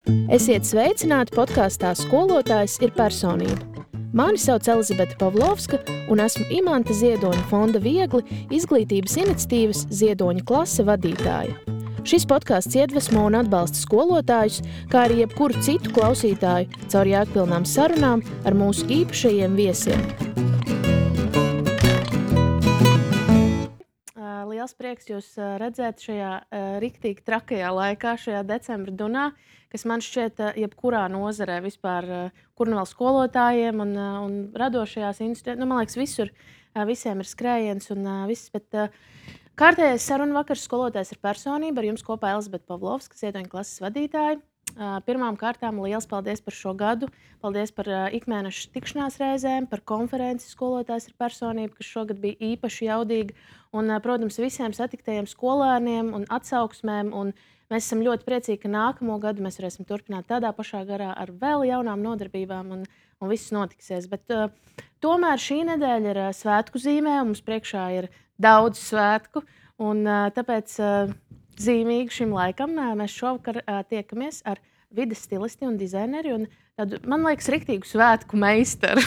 Esiet sveicināti podkāstā Skolotājs ir personība. Mani sauc Elizabete Pavlovska, un esmu Imanta Ziedoņa fonda Viegli izglītības iniciatīvas Ziedoņa klase vadītāja. Šis podkāsts iedvesmo un atbalsta skolotājus, kā arī jebkuru citu klausītāju caur jēgpilnām sarunām ar mūsu īpašajiem viesiem. Liels prieks jūs redzēt šajā riktīgi trakajā laikā, šajā decembra dunā, kas man šķiet jebkurā nozarē vispār, kur nu vēl skolotājiem un radošajās institūcijās. Man liekas, visur visiem ir skrējiens un viss, bet kārtējais saruna vakars Skolotājs ir personība. Ar jums kopā Elizabete Pavlovska, Ziedoņa klases vadītāja. Pirmām kārtām liels paldies par šo gadu. Paldies par ikmēneša tikšanās reizēm, par konferenci Skolotājs ir personība, kas šogad bija īpaši jaudīga. Un, protams, visiem satiktajiem skolēniem un atsauksmēm. Un mēs esam ļoti priecīgi, ka nākamo gadu mēs varēsim turpināt tādā pašā garā ar vēl jaunām nodarbībām un viss notiksies. Bet tomēr šī nedēļa ir svētku zīmē, un mums priekšā ir daudz svētku. Un tāpēc zīmīgi šim laikam mēs šovakar tiekamies ar vides stilisti un dizaineri un tādu, man liekas, riktīgu svētku meistaru.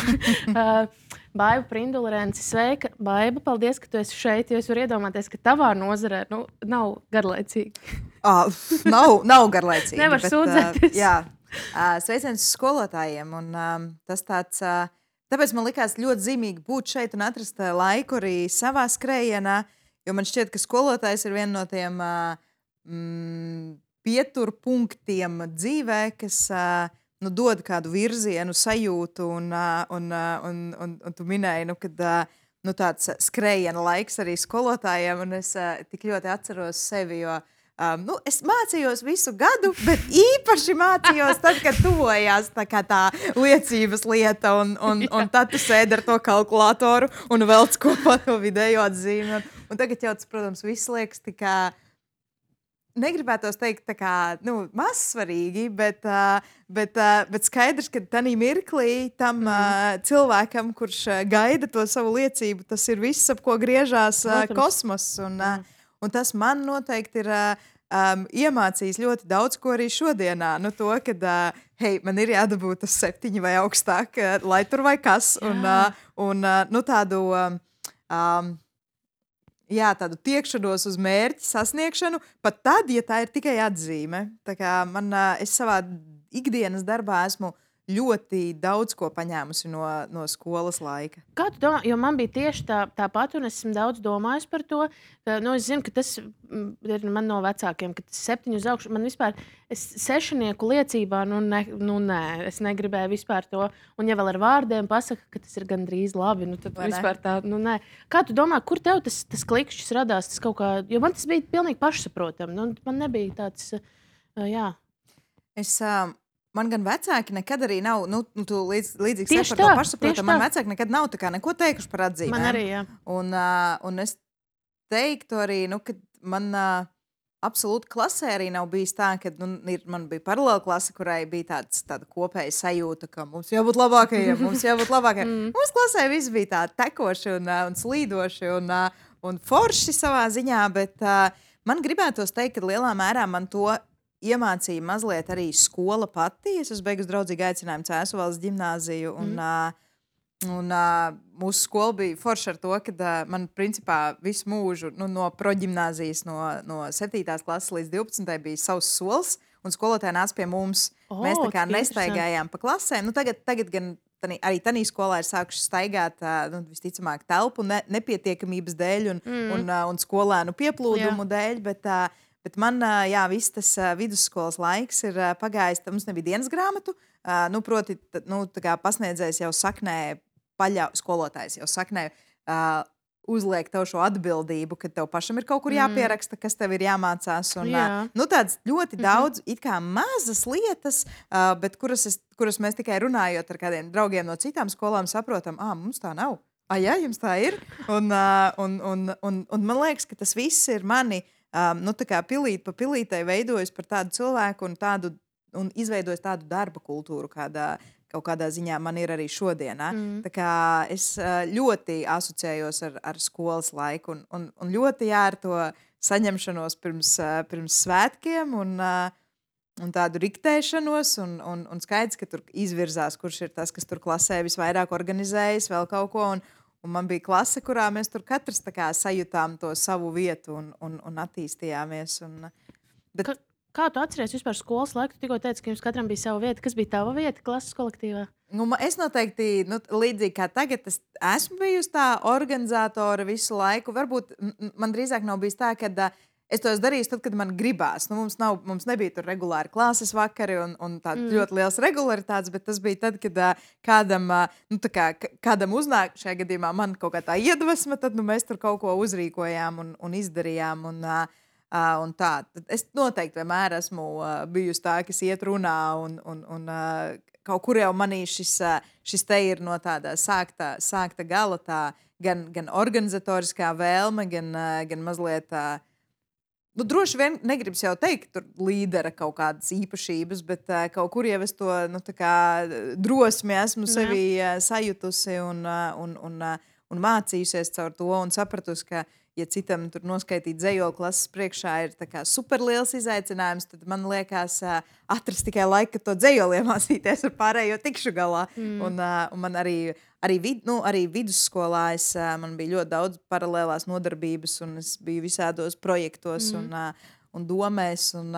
Baiba Prindula-Renci, sveika. Baiba, paldies, ka tu esi šeit, jo es varu iedomāties, ka tavā nozarē nav garlaicīgi. Nav garlaicīgi. Nevar sūdzēties. Sveiciens skolotājiem. Un, tas tāds, tāpēc man likās ļoti zīmīgi būt šeit un atrast laiku arī savā skrējienā, jo man šķiet, ka skolotājs ir viena no tiem pieturpunktiem dzīvē, kas dod kādu virzienu, sajūtu, un tu minēji, kad tāds skrējiena laiks arī skolotājiem, un es tik ļoti atceros sevi, jo es mācījos visu gadu, bet īpaši mācījos tad, kad tuvojās tā liecības lieta, un tad tu sēdi ar to kalkulātoru un velc kopā to vidējo atzīmi. Un tagad jau tas, protams, viss liekas tikā, negribētos teikt tā kā, mazsvarīgi, bet skaidrs, ka tanī mirklī tam cilvēkam, kurš gaida to savu liecību, tas ir viss, ap ko griežās kosmos. Un tas man noteikti ir iemācījis ļoti daudz ko arī šodienā. To, kad man ir jādabū tas 7 vai augstāk, lai tur vai kas. Un tādu tiekšanos uz mērķi sasniegšanu, pat tad, ja tā ir tikai atzīme. Tā kā es savā ikdienas darbā esmu ļoti daudz ko paņēmusi no skolas laika. Kā tu domā? Jo man bija tieši tāpat, un es esmu daudz domājis par to. Es zinu, ka tas ir man no vecākiem, ka tas 7 uz augšu. Man vispār, es 6 liecībā, nē, es negribēju vispār to. Un ja vēl ar vārdiem pasaka, ka tas ir gandrīz labi, tad vispār tā, nē. Kā tu domā, kur tev tas klikšķis radās? Tas kaut kā, jo man tas bija pilnīgi pašsaprotam. Man nebija tāds, jā. Man gan vecāki nekad arī nav, tu līdzīgi saki par to pašsaprotamu, man vecāki nekad nav tā kā neko teikuši par atzīmēm. Man arī, jā. Un es teiktu arī, ka man absolūti klasē arī nav bijis tā, ka man bija paralēla klase, kurai bija tāda kopēja sajūta, ka mums jābūt labākajiem, Mums klasē viss bija tā tekoši un slīdoši un forši savā ziņā, bet man gribētos teikt, ka lielā mērā man to iemācīja mazliet arī skola pati. Es esmu beigusi draudzīgu aicinājumu Cēsuvaldes ģimnāziju, un mūsu skola bija forša ar to, ka man principā visu mūžu no proģimnāzijas no 7. klases līdz 12. bija savs sols, un skolotāji nāca pie mums. Mēs tā kā nestaigājām pa klasēm. Tagad gan arī tanī skolā ir sākuši staigāt visticamāk telpu nepietiekamības dēļ un skolēnu pieplūdumu dēļ, bet man, viss tas vidusskolas laiks ir pagājis, mums nebija dienas grāmatu, proti, tā kā pasniedzējs jau saknē, skolotājs jau saknē uzliek tev šo atbildību, ka tev pašam ir kaut kur jāpieraksta, kas tev ir jāmācās. Un, tāds ļoti daudz, it kā mazas lietas, bet kuras mēs tikai runājot ar kādiem draugiem no citām skolām saprotam, mums tā nav. Jā, jums tā ir. Un man liekas, ka tas viss ir mani tā kā pilīt pa pilītei veidojis par tādu cilvēku un izveidojis tādu darba kultūru, kaut kādā ziņā man ir arī šodienā. Tā kā es ļoti asociējos ar skolas laiku un ļoti ar to saņemšanos pirms svētkiem. un tādu riktēšanos, un skaidrs, ka tur izvirzās, kurš ir tas, kas tur klasē visvairāk organizējas, vēl kaut ko. Un man bija klase, kurā mēs tur katrs tā kā sajūtām to savu vietu un attīstījāmies. Bet, Kā tu atceries vispār skolas laiku? Tu tikko teici, ka jums katram bija sava vieta. Kas bija tava vieta klases kolektīvā? es noteikti, līdzīgi kā tagad, es esmu bijusi tā organizātore visu laiku. Varbūt man drīzāk nav bijis tā, ka es to esmu darījis tad, kad man gribās. Mums nebija tur regulāri klases vakari un tādas ļoti liels regularitātes, bet tas bija tad, kad kādam uznāk, šajā gadījumā man kaut kā tā iedvesma, tad mēs tur kaut ko uzrīkojām un izdarījām. Un tā. Tad es noteikti vienmēr esmu bijusi tā, kas iet runā un kaut kur jau manī šis te ir no tāda sākta gala, tā gan organizatoriskā vēlme, gan mazliet droši vien negribas jau teikt, tur līdera kaut kādas īpašības, bet kaut kur jau es to drosmi esmu sevi sajutusi un mācījusies caur to un sapratusi, ka ja citam tur noskaitīt dzejoli klases priekšā ir superliels izaicinājums, tad man liekas atrast tikai laiku, kad to dzejoli iemācīties ar pārējo tikšu galā. Un man arī vidusskolā man bija ļoti daudz paralēlās nodarbības, un es biju visādos projektos un domēs, un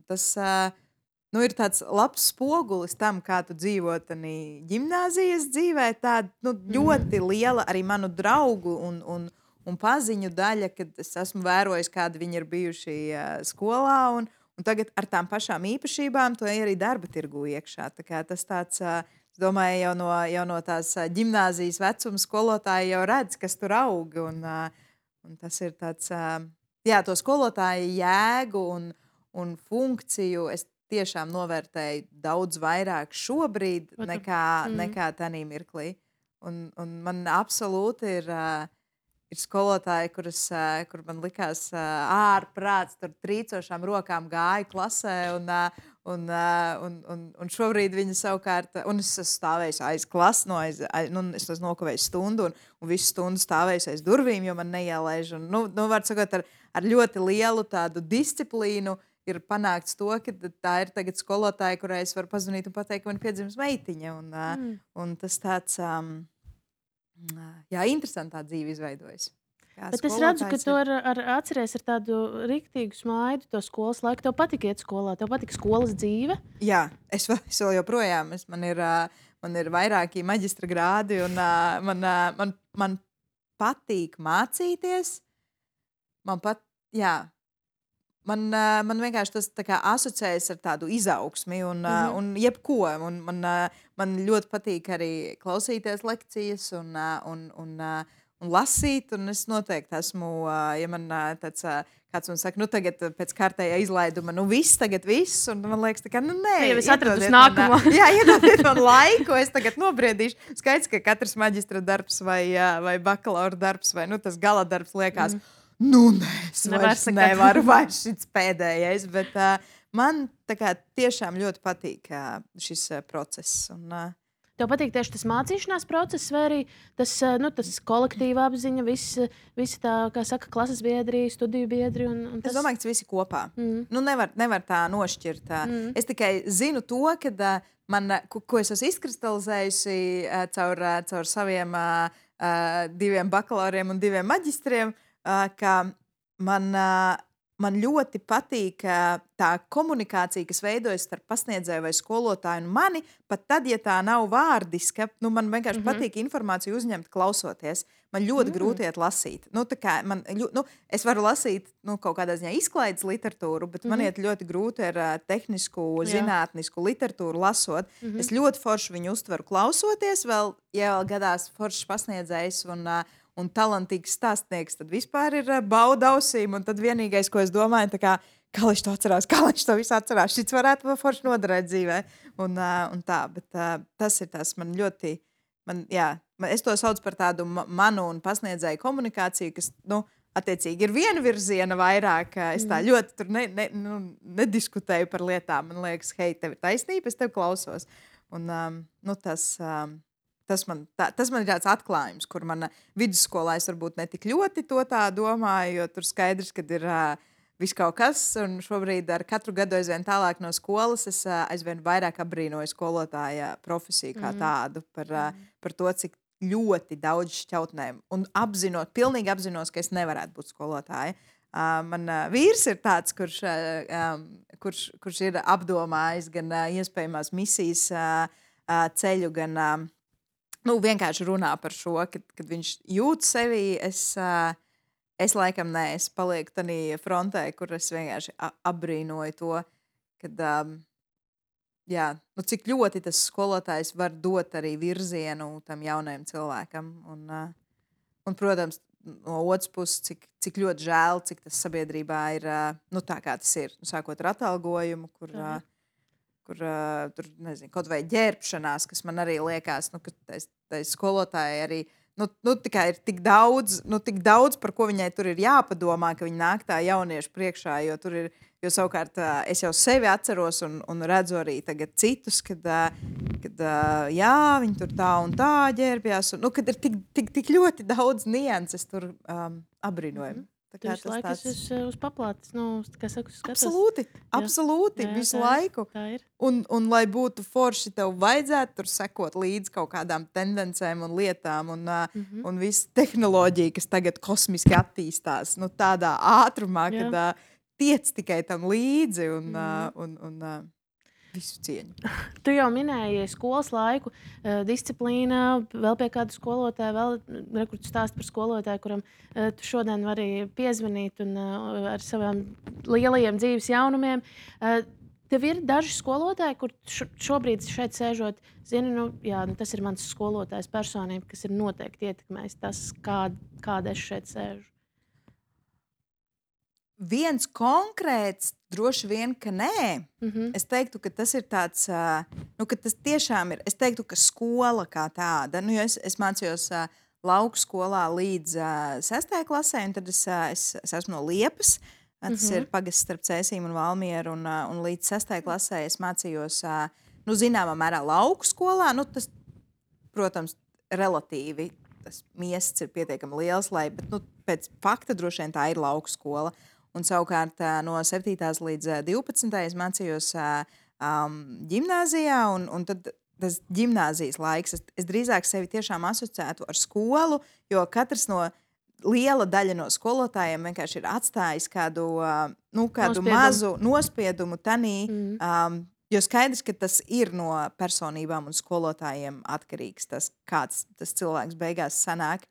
tas ir tāds labs spogulis tam, kā tu dzīvo ģimnāzijas dzīvē. Tāda ļoti liela arī manu draugu un paziņu daļa, kad es esmu vērojis, kādi viņi ir bijuši skolā, un tagad ar tām pašām īpašībām to arī darba tirgu iekšā. Tā kā tas tāds, es domāju, jau no tās ģimnāzijas vecuma skolotāji jau redz, kas tur aug, un tas ir tāds, to skolotāju jēgu un funkciju es tiešām novērtēju daudz vairāk šobrīd nekā tanī mirklī. Un man absolūti ir skolotāji, kur man likās ārprāts, tur trīcošām rokām gāja klasē, un šobrīd viņi savukārt, un es esmu stāvējis aiz klases, es esmu nokavējis stundu, un visu stundu stāvējis aiz durvīm, jo man neielaiž. Var sakot, ar ļoti lielu tādu disciplīnu ir panākts to, ka tā ir tagad skolotāja, kurai es varu pazvanīt un pateikt, ka man piedzimis meitiņa. Un tas tāds... interesantā dzīve izveidojas. Bet es redzu, ka tu atceries ar tādu riktīgu smaidu to skolas laiku. Tev patika iet skolā, tev patika skolas dzīve? Jā, es vēl joprojām. Man ir vairāki maģistra grādi, un man patīk mācīties. Man vienkārši tas asociējas ar tādu izaugsmi un jebko. Man ļoti patīk arī klausīties lekcijas un lasīt. Un es noteikti esmu, ja man kāds man saka, tagad pēc kārtējā izlaiduma, viss, un man liekas, nē. Jau es atradu nākamo. Iedodiet man laiku, es tagad nobriedīšu. Skaidrs, ka katrs maģistra darbs vai bakalaura darbs vai tas gala darbs liekas, es nevaru vairs šis pēdējais, bet man tiešām ļoti patīk šis process. Tev patīk tieši tas mācīšanās process, vai arī tas kolektīva apziņa, visi tā, kā saka, klases biedri, studiju biedri? Es domāju, ka tas visi kopā. Nevar tā nošķirt. Es tikai zinu to, ka ko es esmu izkristalizējusi caur saviem 2 bakalauriem un 2 maģistriem, ka man ļoti patīk tā komunikācija, kas veidojas starp pasniedzēju vai skolotāju un mani, pat tad, ja tā nav vārdiska, man vienkārši patīk informāciju uzņemt, klausoties. Man ļoti grūti iet lasīt. Es varu lasīt kaut kādā ziņā izklaides literatūru, bet man iet ļoti grūti ar tehnisku, zinātnisku literatūru lasot. Es ļoti forši viņu uztveru klausoties, vēl gadās foršs pasniedzējs un talantīgs stāstnieks, tad vispār ir bauda ausīm, un tad vienīgais, ko es domāju, kā viņš to atcerās, kā viņš to visu atcerās, šis varētu forši noderēt dzīvē, un tā, bet tas ir tas, man ļoti, es to saucu par tādu manu un pasniedzēju komunikāciju, kas, attiecīgi ir vienvirziena vairāk, es tā ļoti tur nediskutēju par lietām, man liekas, hei, tev ir taisnība, es tev klausos, un tas man ir tāds atklājums, kur mana vidusskolā es varbūt ne tik ļoti to tā domāju, jo tur skaidrs, kad ir viss kaut kas, un šobrīd ar katru gadu aizvien tālāk no skolas es aizvien vairāk abrīnoju skolotāja profesiju kā tādu par to, cik ļoti daudz šķautnēm, un pilnīgi apzinos, ka es nevarētu būt skolotāja. Man vīrs ir tāds, kurš ir apdomājis gan iespējamās misijas ceļu, gan vienkārši runā par šo, kad viņš jūt sevi. Es laikam es palieku tādā frontē, kur es vienkārši apbrīnoju to, kad, cik ļoti tas skolotājs var dot arī virzienu tam jaunajam cilvēkam. Un protams, no otras puses, cik ļoti žēl, cik tas sabiedrībā ir tā, kā tas ir. Sākot ar atalgojumu, kur tur, nezinu, kaut vai ģērbšanās, kas man arī liekas, ka tai skolotāji arī tikai ir tik daudz, par ko viņai tur ir jāpadomā, ka viņa nāk tā jauniešu priekšā, jo savukārt es jau sevi atceros un redzu arī tagad citus, kad viņi tur tā un tā ģērbjās, kad ir tik ļoti daudz nianses tur abrīnojami. Tu visu laiku esi uz paplātes, kā saka, skatos. Absolūti, visu laiku. Tā ir. Un lai būtu forši, tev vajadzētu tur sekot līdz kaut kādām tendencēm un lietām, un visa tehnoloģija, kas tagad kosmiski attīstās, tādā ātrumā, kad tiec tikai tam līdzi un visu cieņu. Tu jau minēji skolas laiku, disciplīna, vēl pie kāda skolotāja, vēl rekurts stāst par skolotāju, kuram tu šodien vari piezvanīt un ar savām lielajiem dzīves jaunumiem. Tev ir daži skolotāji, kur šobrīd šeit sēžot, zini, tas ir mans skolotājs personība, kas ir noteikti ietekmējis tas, kāda es šeit sēžu. Viens konkrēts, droši vien, ka nē. Es teiktu, ka tas ir tāds, ka tas tiešām ir. Es teiktu, ka skola kā tāda, jo es mācījos lauku skolā līdz 6. klasē, un tad es esmu no Liepas. Tas ir pagasts starp Cēsīm un Valmieru, un līdz 6. klasē es mācījos, zināmā mērā lauku skolā. Tas, protams, relatīvi tas miests ir pietiekami liels, bet pēc fakta droši vien tā ir lauku skola. Un savukārt no 7. līdz 12. es mācījos ģimnāzijā, un tad tas ģimnāzijas laiks, es drīzāk sevi tiešām asociētu ar skolu, jo katrs liela daļa no skolotājiem vienkārši ir atstājis kādu mazu nospiedumu tanī, jo skaidrs, ka tas ir no personībām un skolotājiem atkarīgs, kāds tas cilvēks beigās sanāk.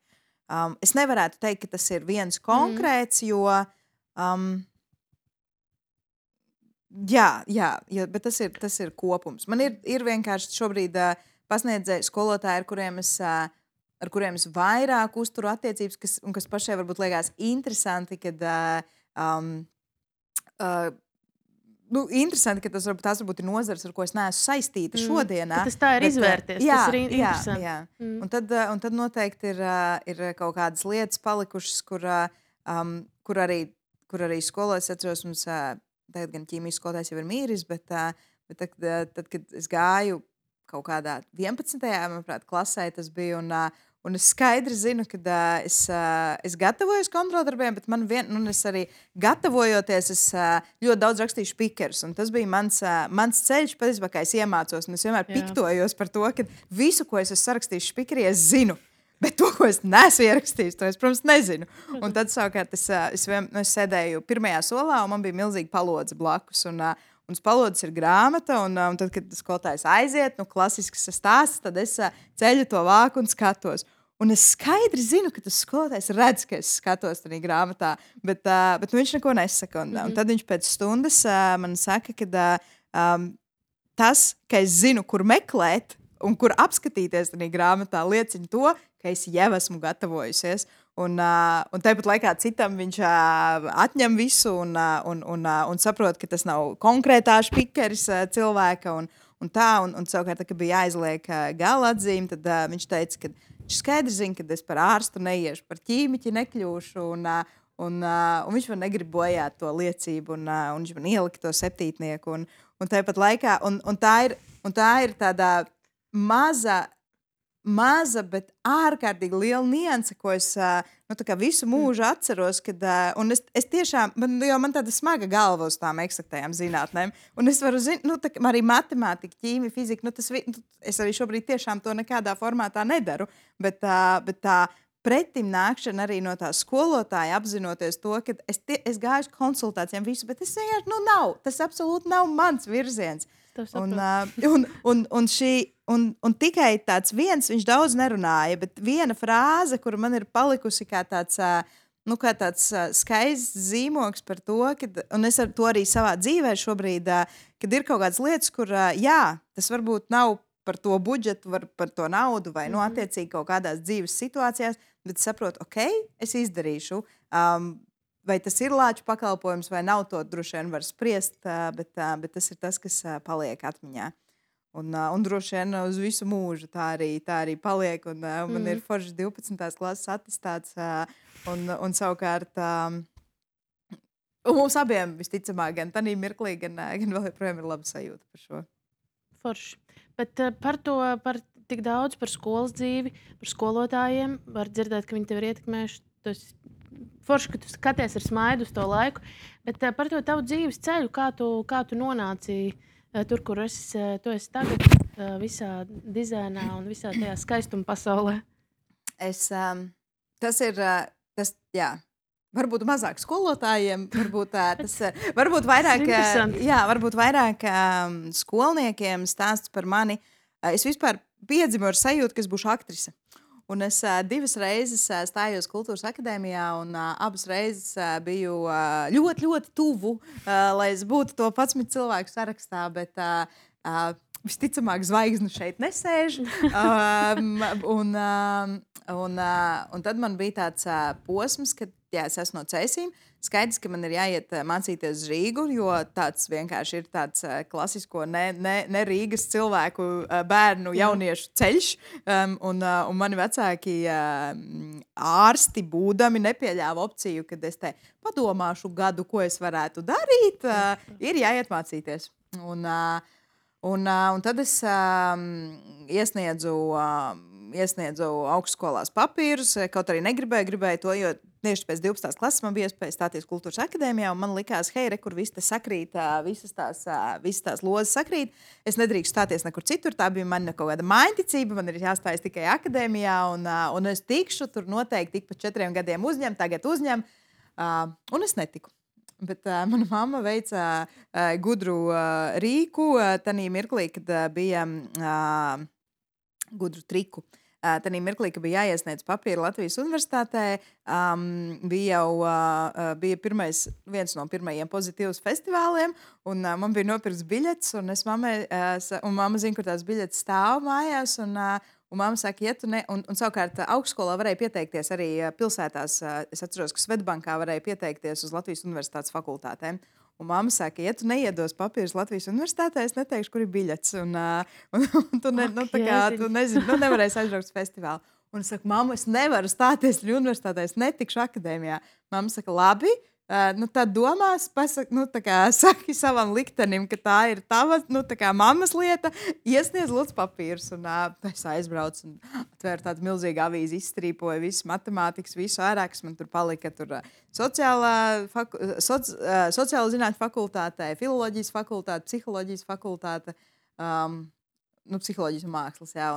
Es nevarētu teikt, ka tas ir viens konkrēts, jo bet tas ir kopums. Man ir vienkārši šobrīd pasniedzēji skolotāji, ar kuriem es vairāk uzturu attiecības, kas pašai varbūt liekas interesanti, interesanti, ka tās varbūt ir nozars, ar ko es neesmu saistīta šodienā. Tas tā ir izvērties, tas ir interesanti. Jā. Un tad noteikti ir kaut kādas lietas palikušas, kur arī skolās atceros, mums tagad gan ķīmijas skolotājs jau ir mīris, bet tad, kad es gāju kaut kādā 11. manuprāt, klasē, tas bija, un es skaidri zinu, ka es gatavojos kontroldarbiem, bet es arī gatavojoties, es ļoti daudz rakstīju špikerus, un tas bija mans ceļš, patiesībā, kā es iemācos, un es vienmēr piktojos par to, ka visu, ko es esmu sarakstījis špikerī, es zinu. Bet to, ko es neesmu ierakstījis, to es, protams, nezinu. Un tad, savukārt, es sēdēju pirmajā solā, un man bija milzīga palodze blakus. Un uz palodzes ir grāmata, un tad, kad skolotājs aiziet, klasisks stāsts, tad es ceļu to vāku un skatos. Un es skaidri zinu, ka tas skolotājs redz, ka es skatos tajā grāmatā, bet viņš neko nesaka. Un tad viņš pēc stundas man saka, ka tas, ka es zinu, kur meklēt un kur apskatīties tajā grāmatā, liecina to, ka es jau esmu gatavojusies. Un tāpat laikā citam viņš atņem visu un saprot, ka tas nav konkrētā špikeris cilvēka. Un savukārt, kad bija jāizliek gala atzīme, tad viņš teica, ka viņš skaidri zina, ka es par ārstu neiešu, par ķīmiķi nekļūšu. Un viņš man negrib bojāt to liecību, un viņš man ielika to septītnieku. Un tāpat laikā, un tā ir tāda maza maza, bet ārkārtīgi liela nianse, ko es visu mūžu atceros. Un es tiešām, man tāda smaga galva uz tām eksaktajām zinātnēm. Un es varu zināt, arī matemātika, ķīmija, fizika. Es arī šobrīd tiešām to nekādā formātā nedaru. Bet tā pretim nākšana arī no tā skolotāja, apzinoties to, ka es gāju uz konsultācijām, visu, bet es vienkārši tas absolūti nav mans virziens. Un tikai tāds viens, viņš daudz nerunāja, bet viena frāze, kura man ir palikusi kā tāds skaists zīmogs par to, un es ar to arī savā dzīvē šobrīd, kad ir kaut kādas lietas, kur, tas varbūt nav par to budžetu, par to naudu vai, attiecīgi kaut kādās dzīves situācijās, bet es saprotu, es izdarīšu. Vai tas ir lāču pakalpojums vai nav, to droši vien var spriest, bet tas ir tas, kas paliek atmiņā. Un droši vien uz visu mūžu tā arī paliek. Man ir foršs 12. klases attestāts. Un savukārt mums abiem visticamāk, gan tādā mirklī, gan vēl joprojām ir laba sajūta par šo. Forši. Bet par tik daudz par skolas dzīvi, par skolotājiem var dzirdēt, ka viņi tev ir ietekmējuši. Tas forši, ka tu skaties ar smaidu uz to laiku, bet par to tavu dzīves ceļu, kā tu nonāci tur, kur tu esi tagad, visā dizainā un visā tajā skaistuma pasaulē. Varbūt mazāk skolotājiem, varbūt vairāk skolniekiem stāsts par mani. Es vispār piedzimu ar sajūtu, ka es būšu aktrise. Un es 2 reizes stājos Kultūras akadēmijā, un abas reizes biju ļoti, ļoti tuvu, lai es būtu to 11 cilvēku sarakstā, bet visticamāk zvaigzne šeit nesēž. Un tad man bija tāds posms, kad es esmu no Cēsīm. Skaidrs, ka man ir jāiet mācīties uz Rīgu, jo tāds vienkārši ir tāds klasisko ne Rīgas cilvēku bērnu jauniešu ceļš. Un mani vecāki ārsti būdami nepieļāva opciju, kad es te padomāšu gadu, ko es varētu darīt. Ir jāiet mācīties. Un tad es iesniedzu augstskolās papīrus, kaut arī gribēju to, jo tieši pēc 12. klases man bija iespēja stāties Kultūras akadēmijā, un man likās, hei, kur viss te sakrīt, visas tās lozes sakrīt. Es nedrīkstu stāties nekur citur, tā bija man kaut kāda mājņticība, man ir jāstājas tikai akadēmijā, un es tikšu tur noteikti tik pa 4 gadiem tagad uzņem, un es netiku. Bet mana mamma veica gudru rīku tanī mirklī, kad bija gudru triku. Tanī mirklī, ka bija jāiesniedz papīri Latvijas universitātē, bija viens no pirmajiem pozitīvas festivāliem, un man bija nopirks biļets, un mamma zina, kur tās biļetes stāv mājās, un mamma saka, ja tu ne, un savukārt augstskolā varēja pieteikties arī pilsētās, es atceros, ka Svetbankā varēja pieteikties uz Latvijas universitātes fakultātēm. Un mamma saka, ja tu neiedos papīrus Latvijas universitātē, es neteikšu, kur ir biļets. Un tu nevarēsi aizbraukt uz festivālu. Un es saku, mamma, es nevaru stāties universitātē, es netikšu akadēmijā. Mamma saka, labi, tad domās, saki savam liktenim, ka tā ir tava, mammas lieta, iesniedz lūdzu papīrus. Un es aizbraucu un atvēru tādu milzīgu avīzi, izstrīpoju visu matemātikas, visu ārā, kas man tur palika. Tur sociāla zinātņu fakultātē, filoloģijas fakultāte, psiholoģijas fakultāte, psiholoģijas un mākslas, jā.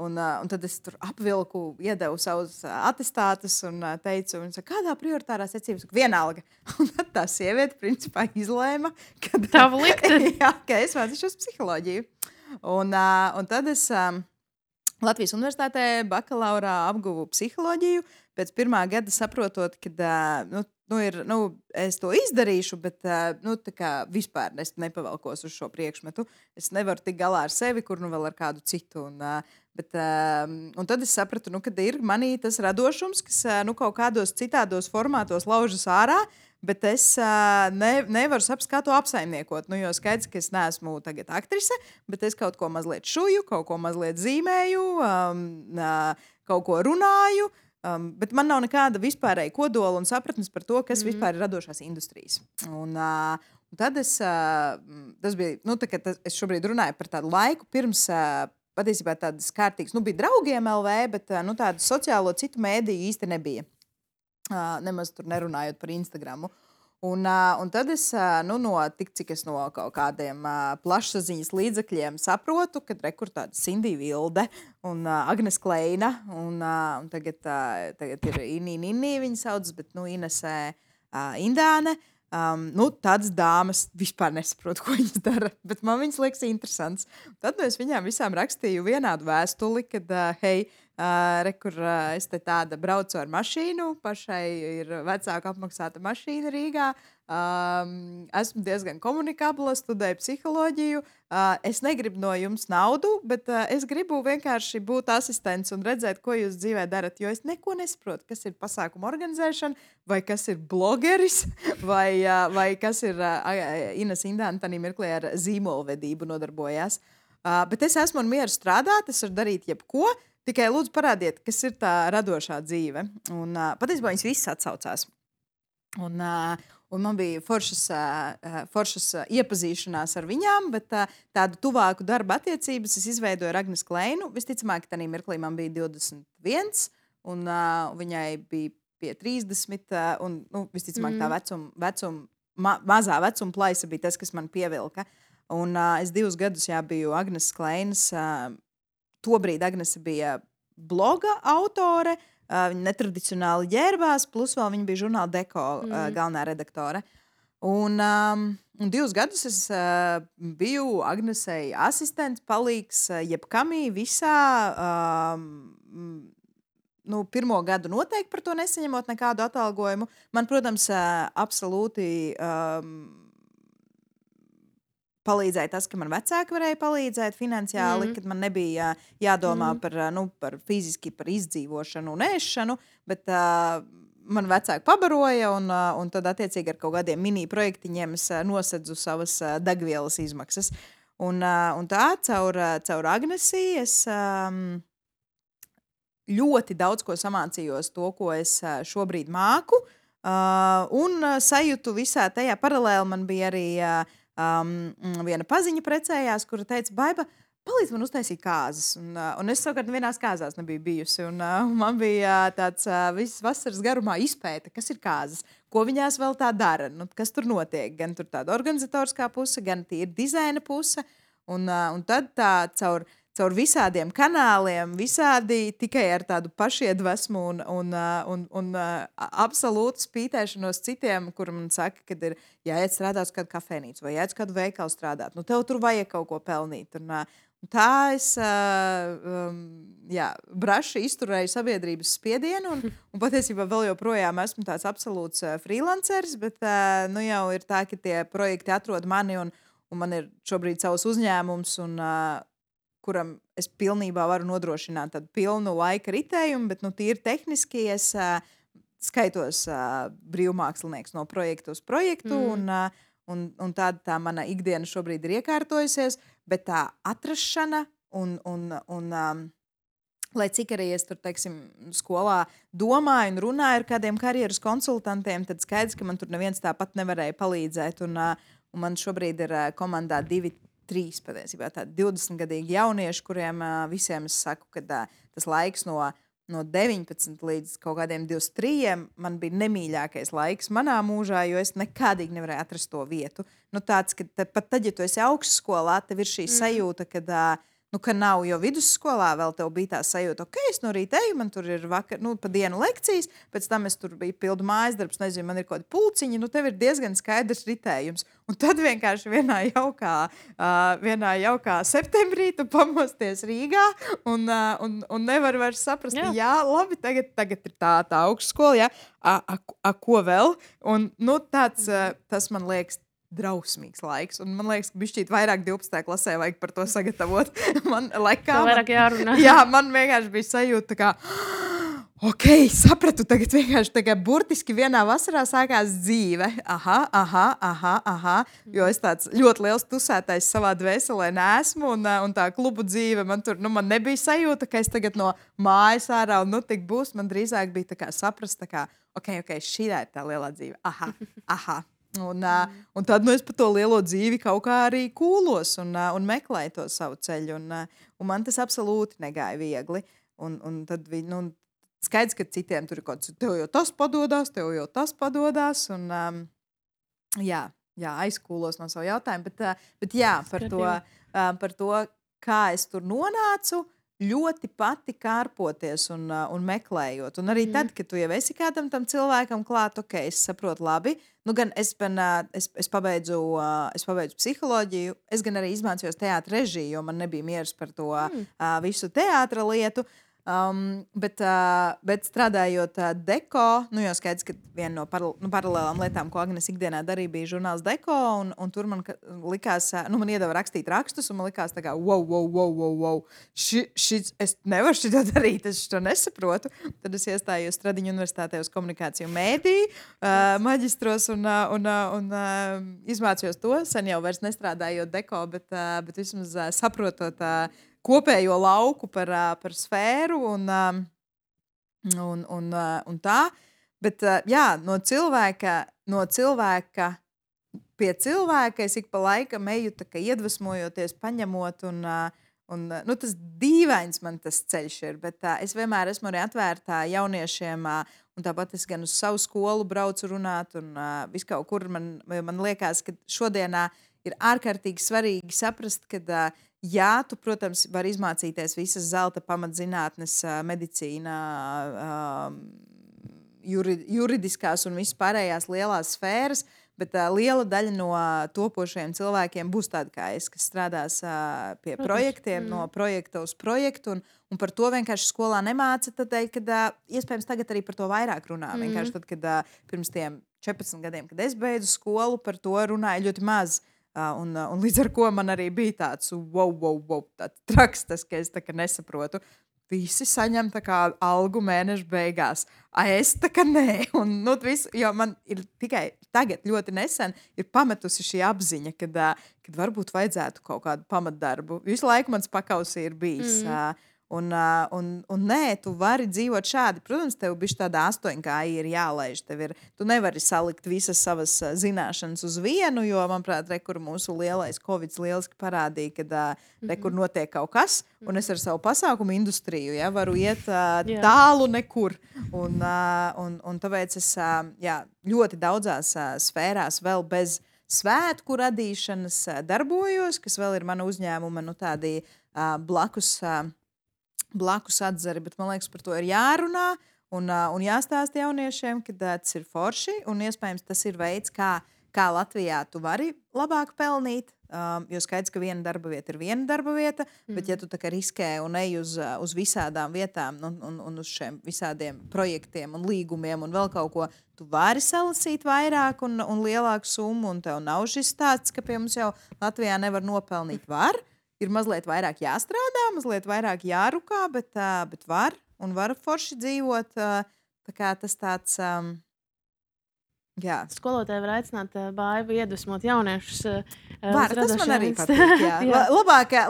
Un tad es tur apvilku, iedevu savus atestātus un teicu, kādā prioritārā secībā? Vienalga. Un tad tā sieviete principā izlēma, ka tavu likteni. Jā, ka es mācīšos psiholoģiju. Un tad es Latvijas universitātē bakalaurā apguvu psiholoģiju. Pēc 1. gada saprotot, ka es to izdarīšu, bet vispār es nepavalkos uz šo priekšmetu. Es nevaru tikt galā ar sevi, kur vēl ar kādu citu. Un tad es sapratu, ka ir manī tas radošums, kas kaut kādos citādos formātos laužas ārā, bet es nevaru saprast, kā to apsaimniekot. Jo skaidrs, ka es neesmu tagad aktrise, bet es kaut ko mazliet šuju, kaut ko mazliet zīmēju, kaut ko runāju. Bet man nav nekāda vispārēja kodola un sapratnes par to, kas vispār ir radošās industrijas. Un tad tas bija, es šobrīd runāju par tādu laiku pirms patiesībā tādas kārtīgas, bija draugiem LV, bet tādu sociālo citu mēdīju īsti nebija. Nemaz tur nerunājot par Instagramu. Un tad es, tik cik es no kaut kādiem plašsaziņas līdzekļiem saprotu, ka rekur tāda Sindija Vilde un Agnes Kleina, un tagad ir Inī, viņa sauc, bet Inesē Indāne. Tādas dāmas vispār nesaprotu, ko viņas dara, bet man viņas liekas interesants. Tad es viņām visām rakstīju vienādu vēstuli, kad, hei, rekur, es te tāda braucu ar mašīnu, pašai ir vecāka apmaksāta mašīna Rīgā, esmu diezgan komunikabla, studēju psiholoģiju, es negribu no jums naudu, bet es gribu vienkārši būt asistents un redzēt, ko jūs dzīvē darat, jo es neko nesaprotu, kas ir pasākuma organizēšana, vai kas ir blogeris, vai kas ir Ines Indāne tanī mirklī ar zīmolvedību nodarbojās. Bet es esmu un mieru strādāt, es varu darīt jebko, tikai lūdzu parādiet, kas ir tā radošā dzīve. Un patiesībā viņas visas atsaucās. Un man bija foršas iepazīšanās ar viņām, bet tādu tuvāku darba attiecības es izveidoju ar Agnes Kleinu. Visticamāk, ka tajā mirklī man bija 21, un viņai bija pie 30, un visticamāk tā mazā vecuma plaisa bija tas, kas man pievilka. Un es 2 gadus biju Agnes Kleinas. Tobrīd Agnese bija bloga autore, viņa netradicionāli ģērbās, plus vēl viņa bija žurnāla Deko galvenā redaktore. Un 2 gadus es biju Agnesei asistents, palīgs jebkamī visā. Pirmo gadu noteikti par to nesaņemot nekādu atalgojumu. Man, protams, absolūti palīdzēja tas, ka man vecāki varēja palīdzēt finansiāli, kad man nebija jādomā par fiziski par izdzīvošanu un ēšanu, bet man vecāki pabaroja, un tad attiecīgi ar kaut kādiem mini projektiņiem es nosedzu savas degvielas izmaksas. Un tā caur Agnesi es ļoti daudz ko samācījos to, ko es šobrīd māku, un sajūtu visā tajā paralēli. Man bija arī viena paziņa precējās, kura teica, Baiba, palīdz man uztaisīt kāzas. Un es savukārt vienās kāzās nebiju bijusi. Un man bija tāds visas vasaras garumā izpēta, kas ir kāzas, ko viņās vēl tā dara, kas tur notiek. Gan tur tāda organizatoriskā puse, gan tīri dizaina puse. Un tad tā caur visādiem kanāliem, visādi tikai ar tādu pašiedvesmu un absolūtu spītēšanos citiem, kur man saka, kad ir jāiet strādāt uz kādu kafejnīcu vai jāiet uz kādu veikalu strādāt. Tev tur vajag kaut ko pelnīt. Un tā es braši izturēju sabiedrības spiedienu un patiesībā vēl joprojām esmu tāds absolūts freelanceris, bet jau ir tā, ka tie projekti atrod mani un man ir šobrīd savs uzņēmums kuram es pilnībā varu nodrošināt tādu pilnu laika ritējumu, bet tīri tehniski es skaitos brīvmākslinieks no projektu uz projektu, un tāda tā mana ikdiena šobrīd ir iekārtojusies, bet tā atrašana un lai cik arī es tur, teiksim, skolā domāju un runāju ar kādiem karjeras konsultantiem, tad skaidrs, ka man tur neviens tāpat nevarēja palīdzēt, un man šobrīd ir komandā 3 patiesībā tādi 20-gadīgi jaunieši, kuriem visiem es saku, ka tas laiks no 19 līdz kaut kādiem 23 man bija nemīļākais laiks manā mūžā, jo es nekādīgi nevarēju atrast to vietu. Tāds, ka pat tad, ja tu esi augstskolā, tev ir šī sajūta, ka nav, jo vidusskolā vēl tev bija tā sajūta, ok, es no rīta eju, man tur ir vakar, pa dienu lekcijas, pēc tam es tur biju pildu mājas darbs, nezinu, man ir kaut kādi pulciņi, tev ir diezgan skaidrs ritējums. Un tad vienkārši vienā jaukā septembrī tu pamosties Rīgā un nevar vairs saprast, jā labi, tagad ir tā augstskola, ko vēl? Un tāds, tas man liekas, drausmīgs laiks. Un man liekas, ka bišķīt vairāk 12. klasē vajag par to sagatavot. Vairāk jārunā. Jā, man vienkārši bija sajūta, kā, ok, sapratu, tagad vienkārši tagad burtiski vienā vasarā sākās dzīve. Aha. Jo es tāds ļoti liels tusētais savā dvēselē neesmu, un tā klubu dzīve, man tur, man nebija sajūta, ka es tagad no mājas ārā, un tik būs, man drīzāk bija tā kā saprast, tā kā, ok, šī ir tā lielā dzīve. Aha. Un tad es pa to lielo dzīvi kaut kā arī kūlos un meklēju to savu ceļu. Un man tas absolūti negāja viegli. Un tad skaidrs, ka citiem tur ir kaut kas, tev jau tas padodas. Un, jā, aizkūlos no savu jautājumu. Bet jā, par to, kā es tur nonācu, ļoti pati kārpoties un meklējot. Un arī tad, kad tu jau esi kādam tam cilvēkam klāt, es saprotu labi. Nu, gan es pabeidzu psiholoģiju, es gan arī izmācījos teātra režiju, jo man nebija miers par to visu teātra lietu. Bet strādājot deko, jau skaidrs, ka viena no paralēlām lietām, ko Agnes ikdienā darīja, bija žurnāls deko, un tur man likās, man iedeva rakstīt rakstus, un man likās tā kā, wow, es nevaru šito darīt, es to nesaprotu. Tad es iestājos Stradiņu universitātē uz komunikāciju mēdīju, maģistros un izmācījos to, sen jau vairs nestrādājot deko, bet vismaz saprotot kopējo lauku par sfēru un tā. Bet jā, no cilvēka pie cilvēka es ik pa laikam eju tā kā iedvesmojoties, paņemot un tas dīvains man tas ceļš ir, bet es vienmēr esmu arī atvērtā jauniešiem un tāpat es gan uz savu skolu braucu runāt un viskaut kur man liekas, ka šodienā ir ārkārtīgi svarīgi saprast, ka jā, tu, protams, vari izmācīties visas zelta pamatzinātnes, medicīnā, juridiskās un vispārējās lielās sfēras, bet liela daļa no topošajiem cilvēkiem būs tādi kā es, kas strādās pie projektiem, no projekta uz projektu, un par to vienkārši skolā nemāca, tādēļ, kad iespējams tagad arī par to vairāk runā. Vienkārši tad, kad pirms tiem 14 gadiem, kad es beidzu skolu, par to runāja ļoti maz. Un līdz ar to man arī bija tāds wow, tāds traks, tas, ka es tā kā nesaprotu. Visi saņem tā kā algu mēneša beigās. Es tā kā nē. Un, jo man ir tikai tagad ļoti nesen ir pametusi šī apziņa, kad varbūt vajadzētu kaut kādu pamatdarbu. Visu laiku mans pakausī ir bijis. Un nē, tu vari dzīvot šādi. Protams, tev bišķi tāda 8K ir jālaiž. Tu nevari salikt visas savas zināšanas uz vienu, jo, manuprāt, kur mūsu lielais Covid lieliski parādīja, kad kur notiek kaut kas, un es ar savu pasākumu industriju varu iet tālu nekur. Un tāpēc es ļoti daudzās sfērās vēl bez svētku radīšanas darbojos, kas vēl ir mana uzņēmuma tādi blakus atzari, bet man liekas, par to ir jārunā un jāstāsta jauniešiem, ka tas ir forši un iespējams tas ir veids, kā Latvijā tu vari labāk pelnīt, jo skaidrs, ka viena darba vieta ir viena darba vieta, bet ja tu tā kā riskē un ej uz visādām vietām un uz šiem visādiem projektiem un līgumiem un vēl kaut ko, tu vari salasīt vairāk un lielāku summu un tev nav šis stāsts, ka pie mums jau Latvijā nevar nopelnīt var. Ir mazliet vairāk jāstrādā, mazliet vairāk jārukā, bet var forši dzīvot. Tā kā tas tāds, jā. Skolotāji var aicināt Baivu iedvesmot jauniešus. Tas man arī patīk, jā.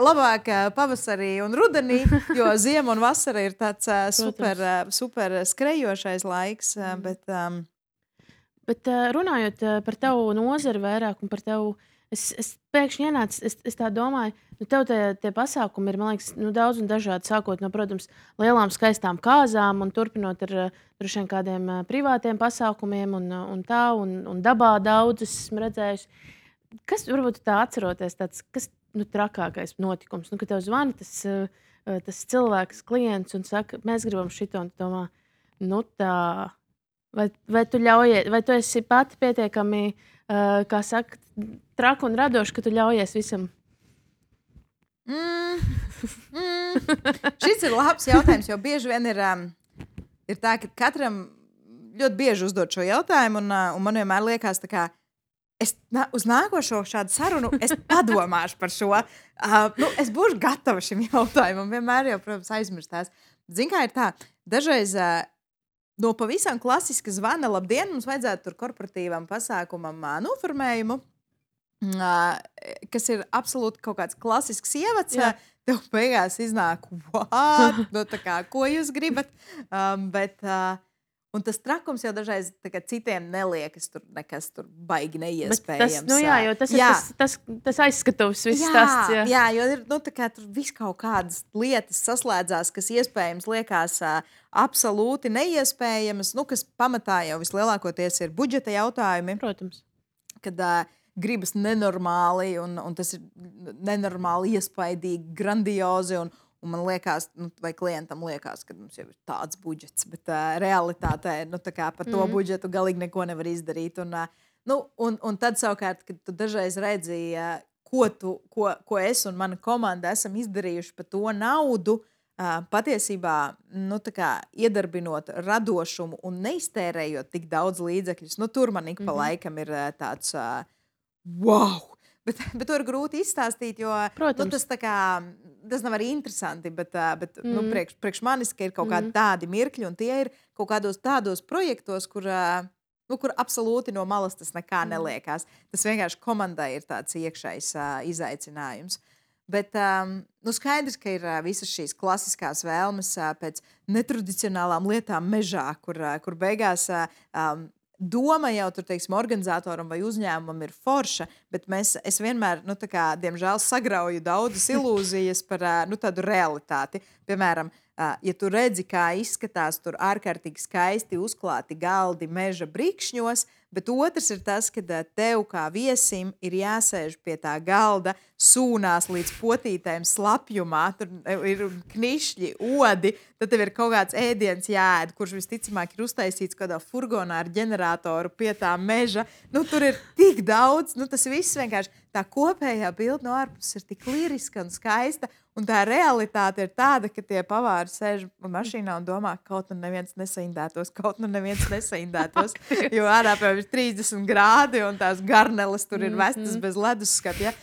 Labāk pavasarī un rudenī, jo ziema un vasara ir tāds super skrejošais laiks, Bet runājot par tavu nozari vairāk un par tavu, es pēkšņi ienācu, es tā domāju, tev tie pasākumi ir, man liekas, daudz un dažādi, sākot no, protams, lielām skaistām kāzām un turpinot ar droši vien kādiem privātiem pasākumiem un dabā daudz esmu redzējusi. Kas varbūt tā atceroties, kas trakākais notikums, ka tev zvana tas cilvēks, klients un saka, mēs gribam šito, un tu domā, tā, vai tu ļaujies, vai tu esi pati pietiekami, kā saka, traka un radoša, ka tu ļaujies visam? Šis ir labs jautājums, jo bieži vien ir tā, ka katram ļoti bieži uzdod šo jautājumu, un man vienmēr liekas, tā kā es uz nākošo šādu sarunu es padomāšu par šo. Es būšu gatava šim jautājumam, vienmēr jau, protams, aizmirstās. Zini, kā ir tā, dažreiz no pavisam klasiska zvana, labdien, mums vajadzētu tur korporatīvam pasākumam noformējumu, kas ir absolūti kaut kāds klasisks ievads, tev beigās iznāk, what? Tā kā, ko jūs gribat? Un tas trakums jau dažreiz citiem neliekas tur nekas tur baigi Bet tas, neiespējams. jo tas ir tas aizskatuvs, viss stāsts. Jā, jo ir tur viss kaut kādas lietas saslēdzās, kas iespējams liekas absolūti neiespējamas, kas pamatā jau vislielākoties ir budžeta jautājumi. Protams. Kad gribas nenormāli, un tas ir nenormāli iespaidīgi, grandiozi. Un man liekas, vai klientam liekas, ka mums jau ir tāds budžets, bet realitātē par to budžetu galīgi neko nevar izdarīt. Un tad savukārt, kad tu dažreiz redzi, ko es un mana komanda esam izdarījuši par to naudu, patiesībā iedarbinot radošumu un neiztērējot tik daudz līdzekļus, tur man ik pa laikam ir tāds wow! Bet to ir grūti izstāstīt, jo tas nav arī interesanti. Bet priekš manis ir kaut kādi tādi mirkļi, un tie ir kaut kādos tādos projektos, kur absolūti no malas tas nekā neliekās. Tas vienkārši komandai ir tāds iekšējs izaicinājums. Bet skaidrs, ka ir visas šīs klasiskās vēlmes pēc netradicionālām lietām mežā, kur beigās doma jau tur, teiksim, organizatoram vai uzņēmumam ir forša, bet es vienmēr, diemžēl, sagrauju daudzas ilūzijas par tādu realitāti. Piemēram, ja tu redzi, kā izskatās tur ārkārtīgi skaisti uzklāti galdi meža brikšņos, bet otrs ir tas, ka tev kā viesim ir jāsēž pie tā galda, sūnās līdz potītēm slapjumā, tur ir knišļi, odi, tad tev ir kaut kāds ēdiens jāēd, kurš visticamāk ir uztaisīts kādā furgonā ar ģeneratoru pie tā meža. Tur ir tik daudz, tas viss vienkārši tā kopējā bilde no ārpuses ir tik liriska un skaista, un tā realitāte ir tāda, ka tie pavāri sēž mašīnā un domā, kaut nu neviens nesaindētos, jo ārā ir 30 grādi un tās garneles tur ir vestas bez ledusskapja.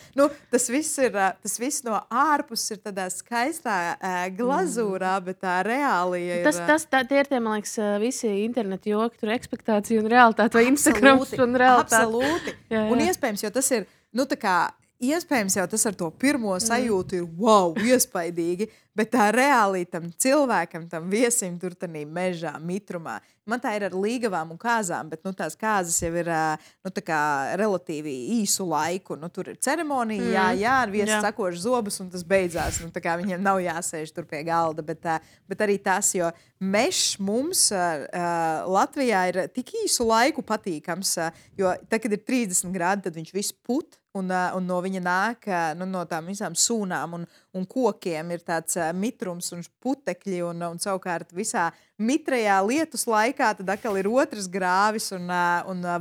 Tas viss no ārpuses ir tādā skaistā glazūrā, bet tā reālija ir... Tie ir tie, man liekas, visi internetu joki, tur ekspektācija un realitāte, vai Instagrams un realitāte. Absolūti. Un iespējams, jo tas ir, iespējams jau tas ar to pirmo sajūtu ir wow, iespaidīgi, bet tā reāli tam cilvēkam, tam viesim tur tādā mežā, mitrumā. Man tā ir ar līgavām un kāzām, bet tās kāzas jau ir relatīvi īsu laiku. Tur ir ceremonija, ar viesi sakoši zobus, un tas beidzās. Viņiem nav jāsēž tur pie galda, bet arī tas, jo mežs mums Latvijā ir tik īsu laiku patīkams, jo tad, kad ir 30 grādi, tad viņš viss put. Un no viņa nāk no tām visām sūnām un kokiem ir tāds mitrums un putekļi. Un savukārt visā mitrajā lietus laikā tad atkal ir otrs grāvis. Un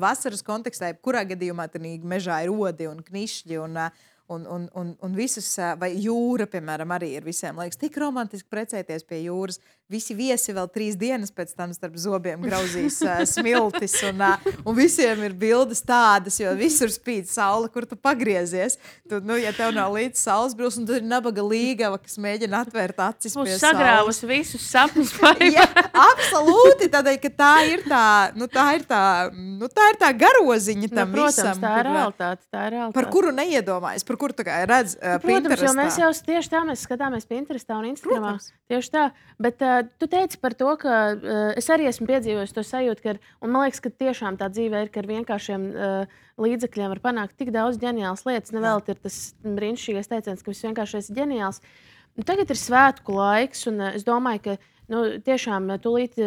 vasaras kontekstā, kurā gadījumā tad mežā ir odi un knišļi un visas, vai jūra, piemēram, arī ir visiem liekas tik romantiski precēties pie jūras. Visi viesi vēl 3 dienas pēc tam starp zobiem grauzīs smiltis, un visiem ir bildes tādas, jo visur spīd saule, kur tu pagriezies. Ja tev nav līdz saules brūs, un tad ir nabaga līgava, kas mēģina atvērt acis pie saules. Sagrāvus visus sapņus. Jā, absolūti, tādēļ, ka tā ir tā garoziņa tam protams, visam. Tā ir realitāte. Par kuru neiedomājas, par kuru tā kā redz Protams, Pinterestā. Jo mēs jau tieši tā mēs skatāmies Pinterestā un Instagramā. Tieši tā, bet tu teici par to, ka es arī esmu piedzīvojis to sajūtu, un man liekas, ka tiešām tā dzīve ir, ka ar vienkāršiem līdzekļiem var panākt tik daudz ģeniālas lietas. Nevēl ir tas brīnišķīgais teiciens, ka viss vienkārši ir ģeniāls. Tagad ir svētku laiks, un es domāju, ka tiešām tūlīt